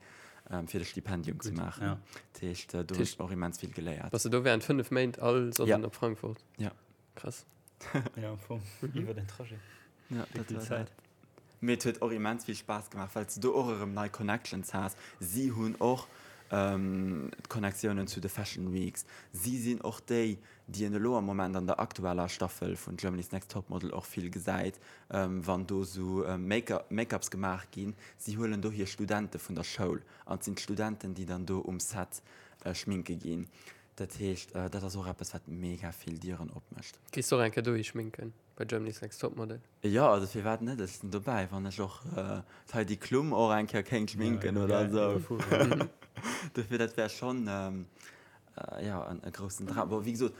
C: fir de Stipendium ze maachen. Dat heescht, do hunn ech och immens vill geléiert.
B: Bass de do während 5 Méint all Sonnden op Frankfurt?
C: Ja.
B: Krass.
A: Ja, am Fong iwwer den Trajet.
C: Ja, dat war dat. Mee et huet och immens vill Spaass gemaach, well s de do och erëm nei Connections has. Si hunn och d'Connectiounen zu de Fashion Weeks. Si sinn och déi, déi een elo am Moment an der aktueller Staffel vun Germany's Next Topmodel och vill gesäit, wann do sou Make-ups gemaach ginn. Si huelen do hir Studente vun der Schoul an et sinn d'Studenten, déi dann do um Set schminke ginn. Dat heescht, dat ass och eppes, wat mega vill Dieren opmécht.
B: Gees de och eng Kéier dohi schminken bei Germany's Next Topmodel?
C: Jo, also firwat net? Ech sinn dobäi, wann ech och d'Heidi Klum och eng Kéier kéint schminken oder esou. Dofir, dat wär schonn, jo, e groussen Dram. Bon, wéi gesot,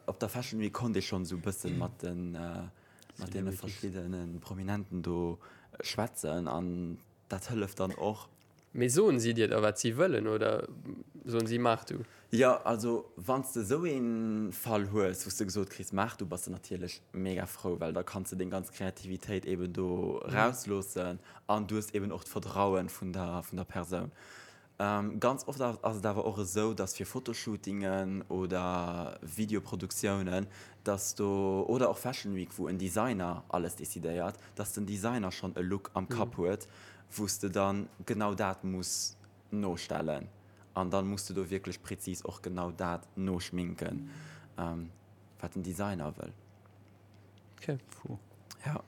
C: op der Fashion Week konnt ee schonn esou e bëssen mat den, mat deene verschiddene Prominenten do schwätzen an dat hëlleft dann och.
B: Mee soen si dir da wat si wëllen oder soen si maach du?
C: Jo, also wann s de esou ee Fall hues, wou s de gesot kriss maach du, bass de natierlech mega frou, well da kanns de deng ganz Kreativitéit eben do rausloossen an du hues eben och d'Vertrauen vun der vun der Persoun. Ganz oft ass et awer och esou, datt fir Fotoshootingen oder Videoproduktiounen, datt do, oder och Fashion Week, wou en Designer alles decidéiert, datt den Designer schonn e Look am Kapp huet, wou s de dann genau dat muss nostellen an dann muss de do wierklech präzis och genau dat noschminken, wat den Designer wëll.
B: Okay.
C: Puh. Ja.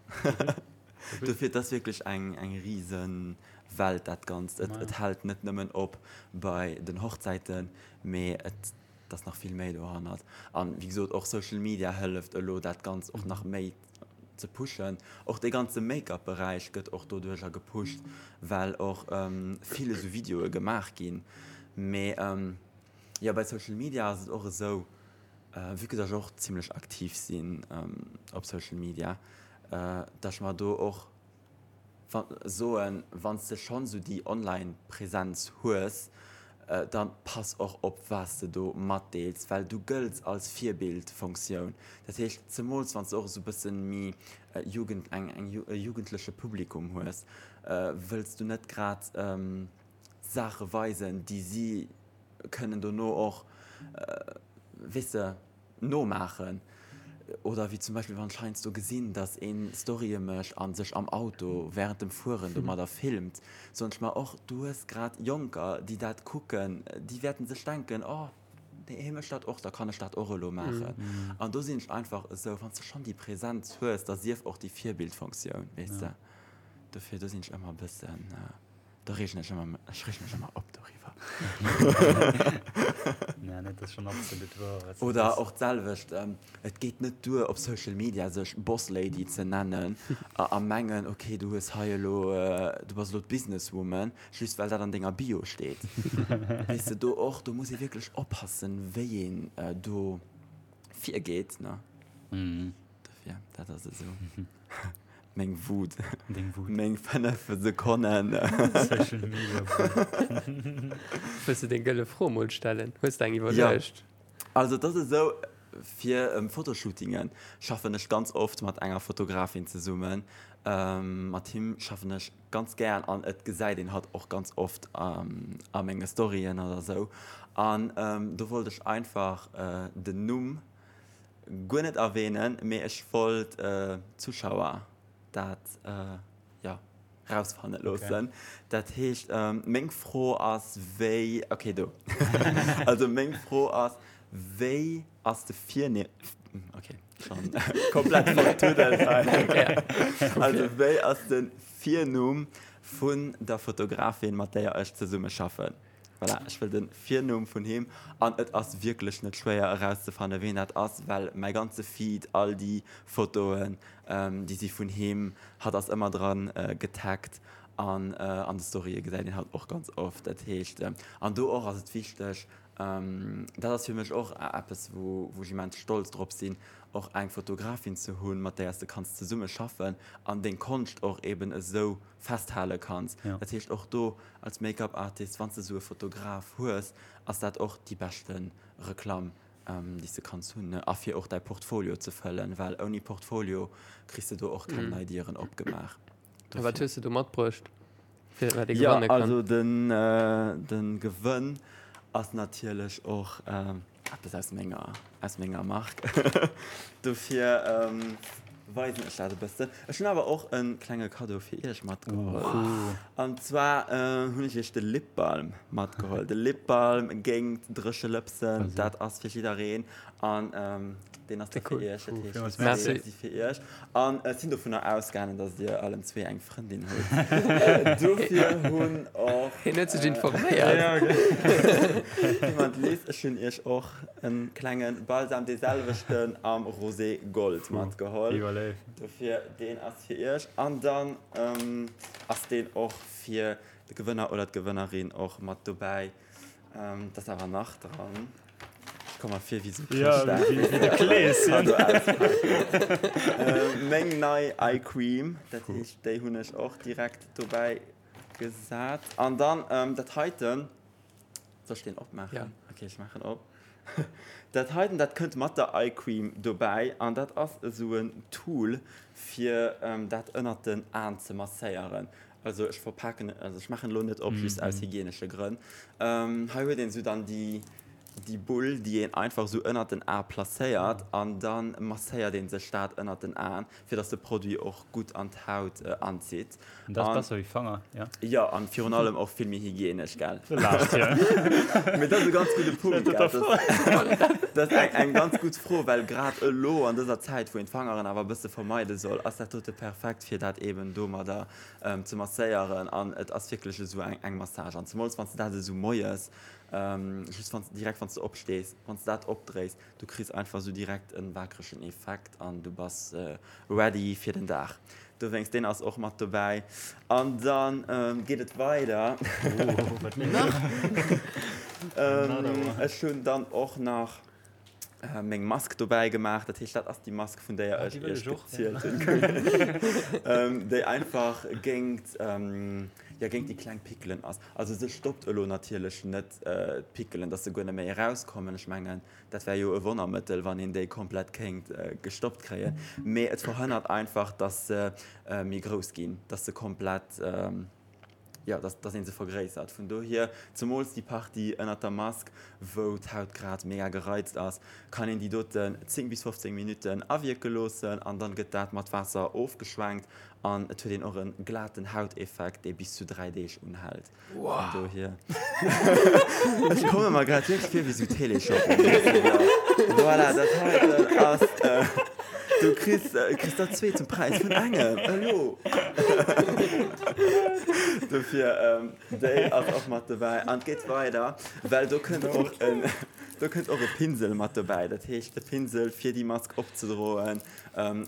C: Dofir, et ass wierklech eng, eng rise Welt dat Ganzt. Et, et hält net nëmmen op bei den Hochzäiten, mee et ass nach vill méi dohannert. An wéi gesot, och Social Media hëlleft elo dat Ganzt och nach méi ze pushen. Och dee ganze Make-up Beräich gëtt och doduercher gepusht, well och vill esou Videoe gemaach ginn. Mee jo, bei Social Media ass et och esou, vue que dass ech och zimlech aktiv sinn op Social Media, dass ech mer do och soen, wann s de schonn esou déi Online-Präsenz hues, dann pass och op wat s de do matdeels, well du gëlls als Virbildfunktioun. Dat heescht, zemools wann s de och esou e bësse méi Jugend, eng, eng, e jugendleche Publikum hues, wëlls du net grad Saache weisen, déi si kënnen dono och, weess de, nomaachen. Oder wéi zum Beispill wann ech heiansdo gesinn, dass een Storye mécht a sech am Auto während dem Fueren domadder filmt, soen ech mer och, du hues grad Jonker, déi dat kucken, déi wäerten sech denken, oh, hie mécht dat och, da kann ech dat och elo maachen. An do sinn ech einfach esou, wann s de schonn déi Präsenz hues, da sief och déi Virbildfunktioun, weess de. Dofir, do sinn ech ëmmer e bëssen. Da reegen ech ëmmer, ech reegen mech ëmmer op doriwwer.
A: Nee, nee, dat ass schonn absolut wouer,
C: wat s du Oder sees. och d'selwecht, et geet net duer op Social Media sech Boss Lady ze nennen a a mengen, okay, du hues hei elo, du bass elo d'Businesswoman, just well dat an denger Bio steet. Weess de, do och, do muss ee wierklech oppassen, wéi een do virgeet, ne? Dofir, dat ass esou. Meng Wut.
A: Deng Wut.
C: Meng 5 Sekonnen.
A: Social Media Wut.
B: Wëlls de deng gëlle Fro mol stellen? Hues de eng iwwerluecht?
C: Ja. Also et ass esou, fir Fotoshootingen schaffen ech ganz oft mat enger Fotografin zesummen. Mat him schaffen ech ganz gären an et gesäit een hatt och ganz oft a menge Storyen oder esou. An do wollt ech einfach den Numm guer net erwähnen, mee ech wollt d'Zuschauer dat jo. Rausfanne loossen. Dat heescht, meng Fro ass, wéi, okay, do. Also meng Fro ass, wéi ass de Virnimm, okay, schonn komplett vertuddelt hei. Also wéi ass de Virnumm vun der Fotografin, mat déier ech zesummeschaffen? Voilà, ech wëll de Virnumm vun him. An et ass wierklech net schwéier erauszefanne ween dat ass, well mäi ganze Feed, all déi Fotoen, déi si vun him, hatt ass ëmmer dran getaggt an an de Storye gesäit een hatt och ganz oft. Dat heescht, an do och ass et wichteg, dat ass fir mech och eppes wou wou ech immens stolz drop sinn, och eng Fotografin ze hunn, mat där s de kanns zesumme schaffen an deng Konscht och eben esou festhale kanns. Dat heescht och do als Make-up Artist, wann s de esou e Fotograf hues, ass dat och déi beschte Reklamm, déi s de kanns hunn, ne? A fir och däi Portfolio ze fëllen, well ouni Portfolio kriss de do och keng nei Dieren opgemaach.
B: A wat hues de do matbruecht,
C: fir wat ee gewanne kann? Jo, also den, de Gewënn ass natierlech och Eppes aus menger, aus menger Mark. Dofir weisen ech dat e bëssen. Ech hunn awer och e klenge Kaddo fir iech matgeholl. An zwar hunn ech iech de Lip Balm matgeholl. De Lip Balm géingt dréche Lëpsen. Dat ass fir jiddereen. An deen ass da fir iech. Dat heescht, déi zwee si fir iech. An ech sinn dovunner ausgaangen, dass dir allen zwee eng Frëndin hutt. Dofir hunn och.
B: Hien huet sech informéiert.
C: Jemand lies, ech hunn iech och e klenge Balsam, dee selwechten am Rosé Gold matgeholl. Dofir, deen ass fir iech. An dann ass deen och fir de Gewënner oder d'Gewënnerin och mat dobäi. Dat ass awer nach dran. Ech komme mer vir wéi sou Chrëschtdag.
A: Ja, wéi de Kleeschen.
C: Meng nei Eye Cream, dat heescht déi hunn ech och direkt dobäi gesat. An dann dat heiten, soll ech deen opmaachen?
B: Ja.
C: Okay, ech maachen op. Dat heiten, dat kënnt mat der Eye Cream dobäi an dat ass esou en Tool fir dat ënnert den Aen ze masséieren. Also ech verpaken, also ech maachen elo net op, just aus hygienesche Grënn. Hei huet een esou dann déi, déi Bull, déi een einfach esou ënnert den A placéiert an da masséiert ee sech dat ënnert den Aen, fir dass de Produit och gutt an d'Haut anzitt.
A: An dat ass besser wéi Fanger, jo?
C: Jo, an virun allem och vill méi hygienesch, gell?
A: Du laachs, jo.
C: Mee dat ass e ganz gudde Punkt, gell? Dat ass eng ganz gutt Fro, well grad elo an dëser Zäit, wou een d'Fangeren awer e bësse vermeide soll, ass dat dote perfekt, fir dat eeben domadder ze masséieren an et ass wierklech esou eng Massage an zemools wann s de dat esou moies just wann s direkt wann s de opstees, wann s de dat opdréis, du kriss einfach esou direkt en waakregen Effekt an du bass ready fir den Dag. Dowéinst deen ass och mat dobäi an dann geet et weider. Ech hunn dann och nach meng Mask dobäi gemaach. Dat heescht, dat ass déi Mask, vun déier ech iech gezielt hunn, déi einfach géingt, jo, géingt déi kleng Pickelen ass. Also se stoppt elo natierlech net d'Pickelen, dass se guer net méi erauskommen. Ech mengen, dat wär jo e Wonnermëttel, wann een déi komplett kéint gestoppt kréien. Mee et verhënnert einfach, dass se méi grouss ginn, dass se komplett, jo, dass, dass ee se vergréissert. Vun dohier, zemools déi Partie ënnert der Mask, wou d'Haut grad mega gereizt ass, kann een déi doten 10 bis 15 Minutten awierke loossen an dann gëtt dat mat Waasser ofgeschwenkt an et huet een och e glaten Hauteffekt, dee bis zu 3 Deeg unhält. Vun dohier, ech komme mer grad wierklech vir wéi sou Téléshopping, voilà, dat heiten ass. Du kriss, kriss der zwee zum Präis vun engem, elo! Dofir, déi ass och mat dobäi. An et geet weider, well do kënnt och en, do kënnt och e Pinsel mat dobäi. Dat heescht, e Pinsel, fir déi Mask opzedroen,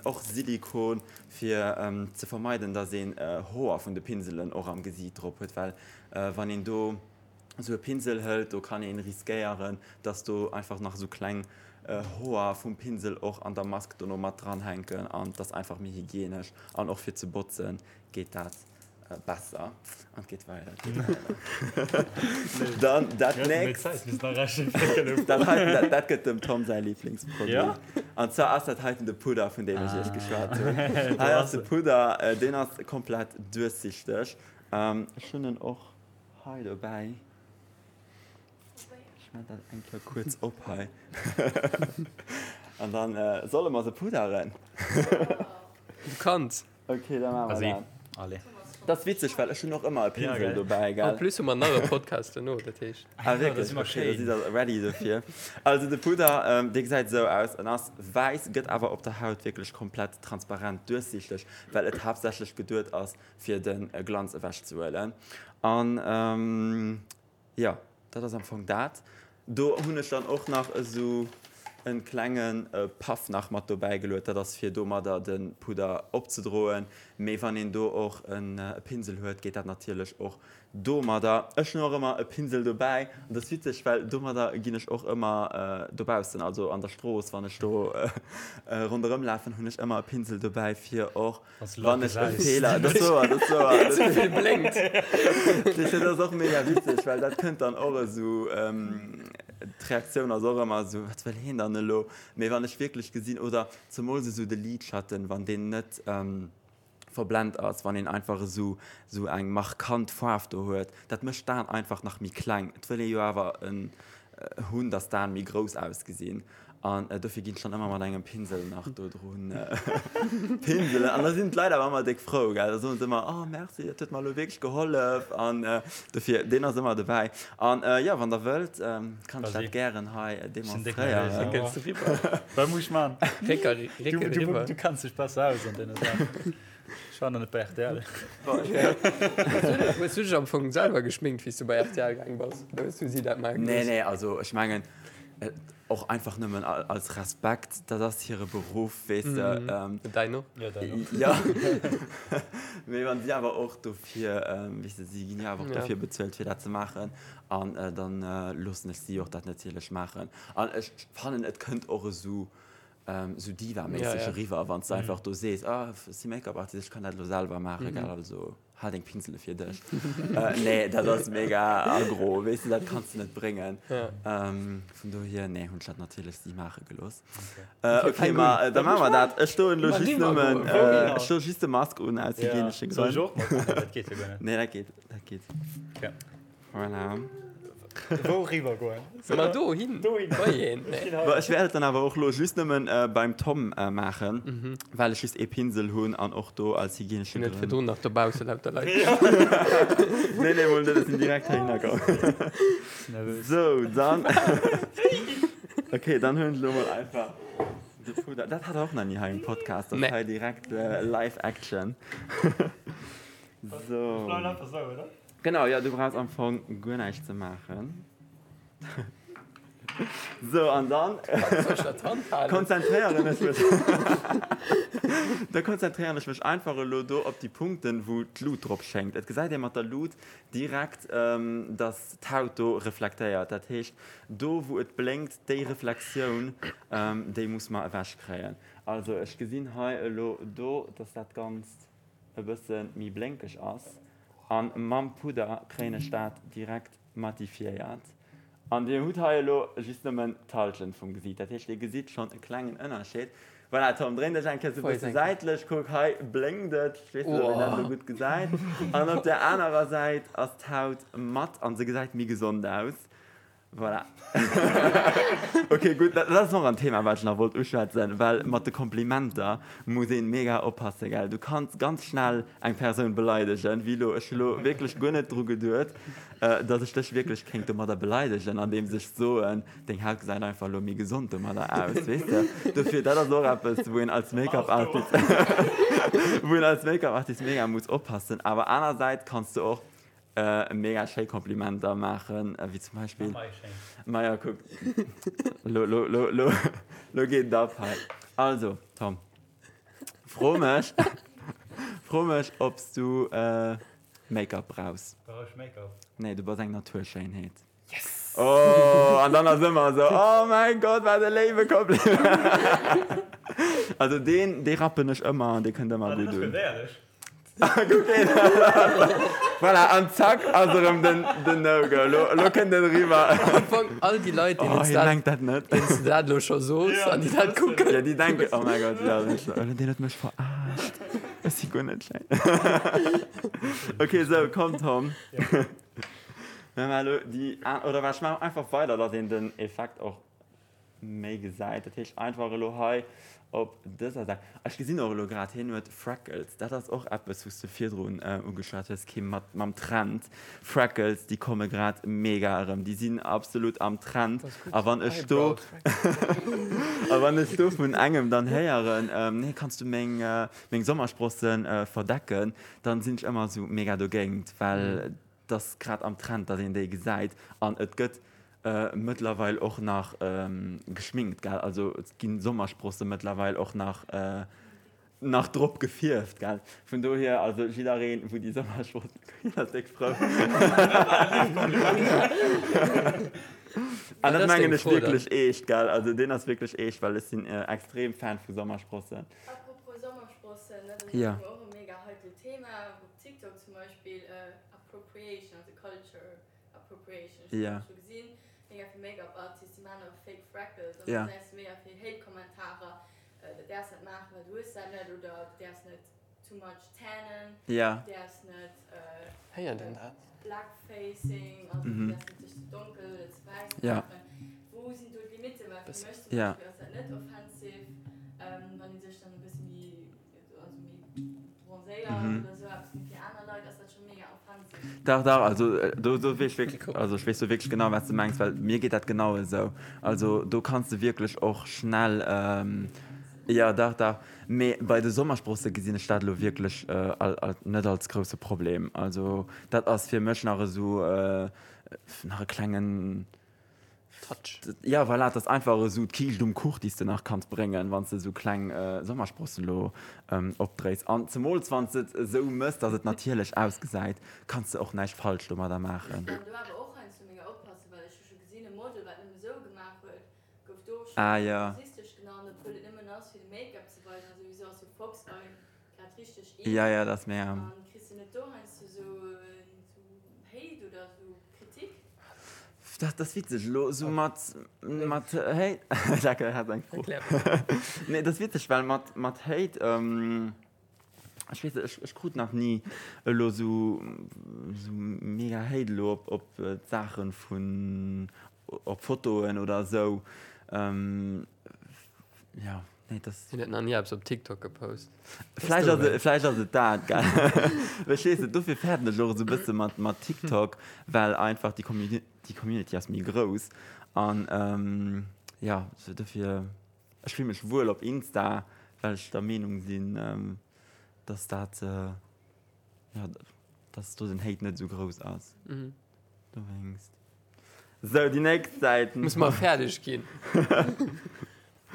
C: och Silikon, fir ze vermeiden, dass een Hoer vun de Pinselen och am Gesiit drop huet, well wann een do esou e Pinsel hëlt, do kann een riskéieren, dass do einfach nach esou kleng Hoer vum Pinsel och an der Mask dono mat dran hänken an et ass einfach méi hygienesch an och fir ze botzen geet dat besser an et geet weider, et geet weider. Dann dat nächst, dat heiten, dat, dat gëtt dem Tom säi Liblingsproduit an zwar ass dat heiten de Pudder vun deem ech iech geschwat hunn. Hei ass de Pudder, deen ass komplett duerchsichteg, ech hunn en och Hei dobäi. Ech maan dat eng Kéier kuerz op hei. An dann solle mer se pudderen.
B: Du kanns.
C: Ok, da maache mer dat.
A: Allez.
C: Dat ass witzeg, well ech hunn och ëmmer e Pinsel dobäi,
B: gell? En plus hu mer nach e Podcast duerno, dat heescht.
C: Ah wierklech? Ok, da sidd der ready dofir. Also de Pudder, dee gesäit esou aus, en ass wäiss, gëtt awer op der Haut wierklech komplett transparent duerchsiichteg, well et haaptsächlech geduet ass, fir de Glanz ewechzehuelen. An jo, dat ass am Fong dat. Do hunn ech dann och nach esou en klenge Puff nach mat dobäi geluet, dat ass fir domadder de Pudder opzedroen, mee wann een do och e Pinsel huet, geet dat natierlech och domadder. Ech hunn och ëmmer e Pinsel dobäi an dat ass witzeg, well domadder ginn ech och ëmmer dobaussen, also an der Strooss, wann ech do ronderëm lafen, hunn ech ëmmer e Pinsel dobäi fir och Wann ech e Feeler, dat ass wouer, dat ass wouer.
B: Ze vill blénkt.
C: Dat ass och mega witzeg, well dat kënnt dann och esou, d'Reaktioun ass och ëmmer esou, wat wëll heen dann elo? Mee wann ech wierklech gesinn, oder zemools esou de Lidschatten, wann deen net verblent ass, wann een einfach esou esou eng markant Faarf do huet, dat mécht d'Aen einfach nach méi kleng. Et wëll ee jo awer en hunn, dass d'Aen méi grouss ausgesinn an dofir ginn ech dann ëmmer mat engem Pinsel nach do drun pinselen an da sinn d'Leit awer ëmmer déck frou, gell, da soen se ëmmer, oh merci, dat huet mer elo wierklech gehollef an dofir, deen ass ëmmer dobäi an jo, wann der wëllt, kann ech dat gären hei demonstréieren.
A: Wat muss ech man? Du kenns dech besser aus an deene Saachen. Ech war nach net bei rtl.
B: Hues du dech am Fong selwer geschminkt, wéi s du bei rtl gaang bass? Oder hues du si dat maache
C: gelooss? Nee, nee, also ech mengen och einfach nëmmen als Respekt, dat ass hire Beruff, weess de.
B: Däin och?
A: Jo, däin och.
C: Jo, mee wann si awer och dofir, weess de, si ginn jo awer och dofir bezuelt, fir dat ze maachen an dann loossen ech si och dat natierlech maachen. An ech fannen, et kënnt och esou Sou Diva-méisseg eriwwer, wann s de einfach do sees, ah, ech si Make-up-Artist, ech kann dat elo selwer maachen, gell, also hal deng Pinsele fir dech. Nee, dat ass mega aggro, weess de, dat kanns de net bréngen. Vun dohier, nee, hunn ech dat natierlech si maache gelooss. Ok, ma da maache mer dat. Ech doen elo just nëmmen, ech doe just de Mask un aus hygienesche Grënn.
A: Soll ech och mat? Dat geet jo guer net.
C: Nee, dat geet, dat geet. Voilà.
A: Wou riwwer goen?
B: Ma do hin.
A: Do hin.
B: Bei een. Nee.
C: Bon, ech wäert et dann awer och lo just nëmmen beim Tom maachen, well ech just ee Pinsel hunn an och do als hygienesche
B: Net
C: Grënn.
B: virdrun nach dobausse lauter Leit.
C: Nee, nee, mol net, ech sinn direkt heihinner komm.
A: Nervös.
C: Sou, dann. Okay, dann huelen ech lo mol einfach de Pudder. Dat hat der och nach ni hei um Podcast, dass
B: Nee.
C: hei direkt live Action.
A: Ech
C: Sou.
A: bleiwen einfach sou, oder?
C: Genau, jo, du brauchs am Fong guer näischt ze maachen. Sou, an dann konzentréieren ech mech, da konzentréieren ech mech einfach elo do op déi Punkten, wou d'Lut drop schéngt. Et gesäit ee mat der Lut direkt, dass d'Haut do reflektéiert. Dat heescht, do wou et blénkt, déi Reflexioun, déi muss mer ewechkréien. Also ech gesinn hei elo do, dass dat Ganzt e bësse méi blénkeg ass. An mam Pudder kréien ech dat direkt matifiéiert. An dir hutt hei elo just nëmmen d'Halschent vum Gesiit. Dat heescht, dir gesitt schonn e klengen Ënnerscheed. Voilà, Tom, dréin dech eng Kéier sou e bësse säitlech. Kuck, hei blénkt et. Ech weess net, ob een dat elo gutt gesäit. An op der anerer Säit ass d'Haut matt an se gesäit méi gesond aus. Voilà. Ok, gutt, dat ass och en Thema, wat ech nach wollt uschwätzen, well mat de Komplimenter muss ee mega oppassen, gell. Du kanns ganz schnell eng Persoun beleidegen, wéi elo. Ech hu lo wierklech guer net dru geduet, datt ech dech wierklech kéint domadder beleidegen, andeems ech soen, deng Haut gesäit einfach elo méi gesond domadder aus, weess de. Dofir, dat ass och eppes, wou een als Make-up-Artist, wou een als Make-up-Artist mega muss oppassen. Awer anersäits kanns du och Mega schéi Komplimenter maachen, wéi zum Beispill. Maja, kuck, lo, lo, lo, lo, lo geet et ab hei. Also, Tom, fro mech, fro mech, ob s du Make-up brauchs.
A: Brauch ech Make-up?
C: Nee, du bass eng Naturschéinheet.
A: Yes!
C: Oh, an dann ass ëmmer esou, oh mäin Gott, wat e léiwe Kompliment! Also deen, dee rappen ech ëmmer an dee kënnt ëmmer gutt un. Kuck een! Voilà, an zack ass erëm den, den No-Go. Lo, lo kënnt en eriwwer.
B: Am Fong all déi Leit, deenen
C: Oh,
B: s
C: hien
B: dat,
C: mengt dat net.
B: deenen s du dat elo scho soos an déi dat kucken.
C: Ja, déi denken, oh mäi Gott, ja, deen huet mech verarscht. Ech si guer net schéin. Ok, sou, komm Tom. Mir maachen elo déi an, oder wat, ech maachen einfach weider, datt een den Effekt och. méi gesäit. Dat heescht einfach elo hei op dëser Säit. Ech gesinn och elo grad, hien huet Freckles. Dat ass och eppes, wou s de virdrun ugeschwat hues, Kim, mat mam Trend. Freckles, déi komme grad mega erëm. Déi sinn absolut am Trend. A wann ech do a wann ech do vun engem dann héieren, nee, kanns du meng meng Sommersprossen verdecken, dann sinn ech ëmmer esou mega dogéint, well 't ass grad am Trend, datt een déi gesäit an et gëtt mëttlerweil och nach geschminkt, gell? Also et gi Sommersprosse mëttlerweil och nach nach drop gefierft, gell? Vun dohier, also jiddereen, wou déi Sommersprossen, hien ass déck frou. An dat mengen ech wierklech eescht, gell? Also deen ass wierklech eescht, well ech sinn extrem Fan vu Sommersprossen.
D: Apropos Sommersprossen, dat ass och e mega heikelt Thema. TikTok zum Beispill Appropriation, also Culture Appropriation, ech hunn dat scho gesinn, mega vill Make-up Artists, déi maachen och fake Freckles an da gesäis de mega vill Hate Kommentarer, du däerfs dat maachen, well du hues dat net oder du däerfs net too much tannen, du däerfs net Blackfacing, also du däerfs net dech ze donkel oder ze wäiss maachen. Wou sinn do d'Limitten? Well fir mech zum Beispill ass dat net offensive, wann ee sech dann e bësse méi
C: Dach, dach, also do, do weess ech wierklech, also ech weess do wierklech genau, wat s de mengs, well mir geet dat genau esou. Also do kanns de wierklech och schnell, jo, dach, dach. Mee bei de Sommersprosse gesinn ech dat elo wierklech net als grousse Problem. Also dat ass fir mech nach esou nach e klengen.
B: Touch.
C: Ja, voilà, et ass einfach esou d'Kiischt um Kuch, déi s de nach kanns bréngen, wann s de esou kleng Sommersprossen elo opdréis. An zemools wann s de et esou mëss, dass et natierlech ausgesäit, kanns de och näischt falsch domadder maachen.
D: Muss een do awer och heiansdo mega oppassen, well ech hu scho gesinn, e Model, wat nëmme esou gemaach huet, gouf do och scho
C: Ah, ja.
D: rassistesch genannt, obwuel et nëmmen ass, fir de Make-up ze weisen. A souwisou ass jo Fox Eye grad richteg in.
C: Ja, ja, dat ass mega.
D: An kriss de net do heiansdo esou Hate oder esou Kritik?
C: Dat ass witzeg elo esou mat mat Hate. Jacques hat eng Fro. Nee, dat ass witzeg, well mat mat Hate, ech weess net, ech ech krut nach ni elo esou esou mega Hate elo op op d'Saache vun op Fotoen oder esou. Jo, nee, dat.
B: Hien huet nach ni eppes op TikTok gepost.
C: Vläicht ass et, vläicht ass et dat, gell? Verstees de? Dofir fäerten ech och esou e bësse mat, mat TikTok, well einfach déi Community, déi Community ass méi grouss. An jo, sou dofir, ech fill mech wuel op Insta, well ech der Meenung sinn, dass dat, jo, dass do den Hate net esou grouss ass. Dowéinst. Sou, déi nächst Säit.
B: Muss mer fäerdeg ginn.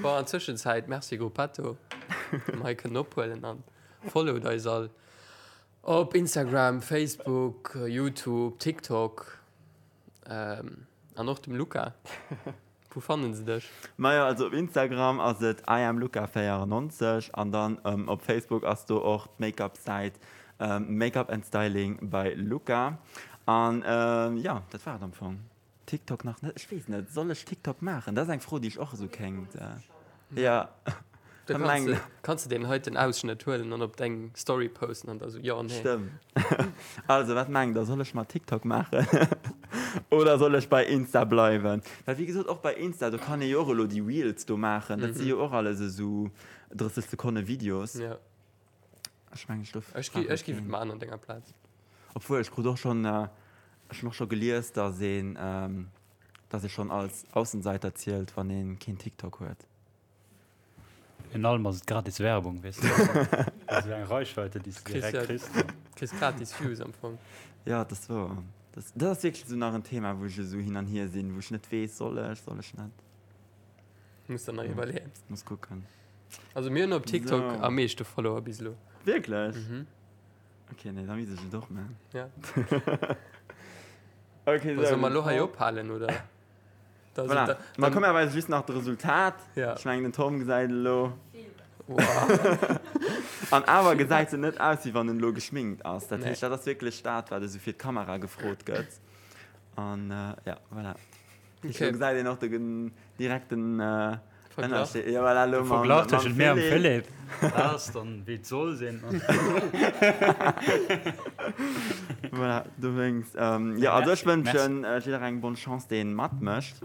B: Bon, an Zwëschenzäit, Merci Gruppetto, datt mer hei kënnen ophuelen an followt eis all op Instagram, Facebook, YouTube, TikTok an och dem Luca. Wou fannen se dech?
C: Majo, also op Instagram ass et iamluca94 an dann op Facebook ass do och d'Makeup Säit Makeup and Styling by Luca. An jo, dat war et am Fong. TikTok nach net, ech weess net, soll ech TikTok maachen? Dat ass eng Fro déi ech och esou kéint, jo.
B: Da kanns de, kanns de deen heiten Ausschnëtt huelen an op deng Story posten an da sou, jo, nee.
C: Stëmmt. Also, wat mengt der, soll ech mer TikTok maachen oder soll ech bei Insta bleiwen? Well wéi gesot, och bei Insta, do kann ee jo och elo déi Reels do maachen, dat si jo och alles esou 30 Sekonne Videos.
B: Ja.
C: Ech mengen, ech do.
B: Ech gi, ech giff et maachen an denger Plaz.
C: Obwuel, ech krut och schonn, ech hunn och scho gelies, dass een, dass ee schonn als Aussenseiter zielt, wann ee keen TikTok huet.
A: Virun allem ass et gratis Werbung, weess de. Also eng Reichweite, déi s de direkt kriss.
B: Kriss gratis Views am Fong.
C: Jo, dat ass wouer. Dat, dat ass wierklech esou nach en Thema, wou ech esou hin an hier sinn, wou ech net weess, soll ech, soll ech net.
B: Muss der nach iwwerleeën.
C: Muss kucken.
B: Also mir hunn op TikTok so. am meeschte Follower bis elo.
C: Wierklech? Mhm. Okay, nee, da misst ech et och man.
B: Ja.
C: okay,
B: so. Soll mer lo hei ophalen, oder?
C: Voilà. Da, Ma komm, mir weisen just nach d'Resultat.
B: Ja.
C: Ech mengen, den Tom gesäit elo.
B: Wow.
C: An awer gesäit en net aus, wéi wann en elo geschminkt ass. Dat
B: Nee.
C: heescht, dat ass wierklech dat, wat esou fir d'Kamera gefrot gëtt. An ja, voilà. Okay.
B: Okay.
C: Elo gesäit een och de gen- direkten
B: Verglach.
C: Ënnerscheed. Ja, voilà, elo
A: De
C: mam,
A: Verglach
C: mam
A: tëschent mir am
C: Philippe.
A: Philippe, dat ass dann, wéi et soll sinn.
C: Voilà, dowéinst. Ähm, ja, also ech
A: Merci.
C: wënschen jidderengem bonne Chance, deen matmécht.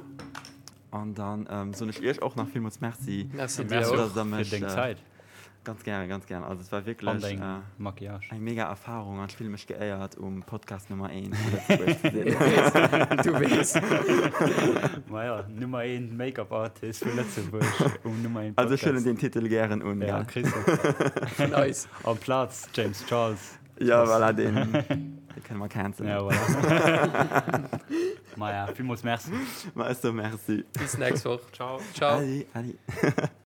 C: An dann soen ech iech och nach villmools Merci.
B: Merci dir och
A: fir deng Zäit.
C: Ganz gären, ganz gären. Also et war wierklech eng mega Erfarung an ech fille mech geéiert um Podcast Nummer 1 zu Lëtzebuerg ze
B: sinn. Du weess.
A: Maja, Nummer 1 Make-up Artist vu Lëtzebuerg um Nummer 1
C: Podcast. Also ech huelen deen Titel gären un.
A: Ja, kriss de.
B: Vun eis.
A: Amplaz James Charles.
C: Ja, voilà, deen, dee kënne mer cancelen.
A: Ja, voilà. Maja, villmools Merci.
C: Ma ech soe Merci.
B: Bis nächst Woch.
A: Ciao.
B: Ciao.
C: Adi, adi.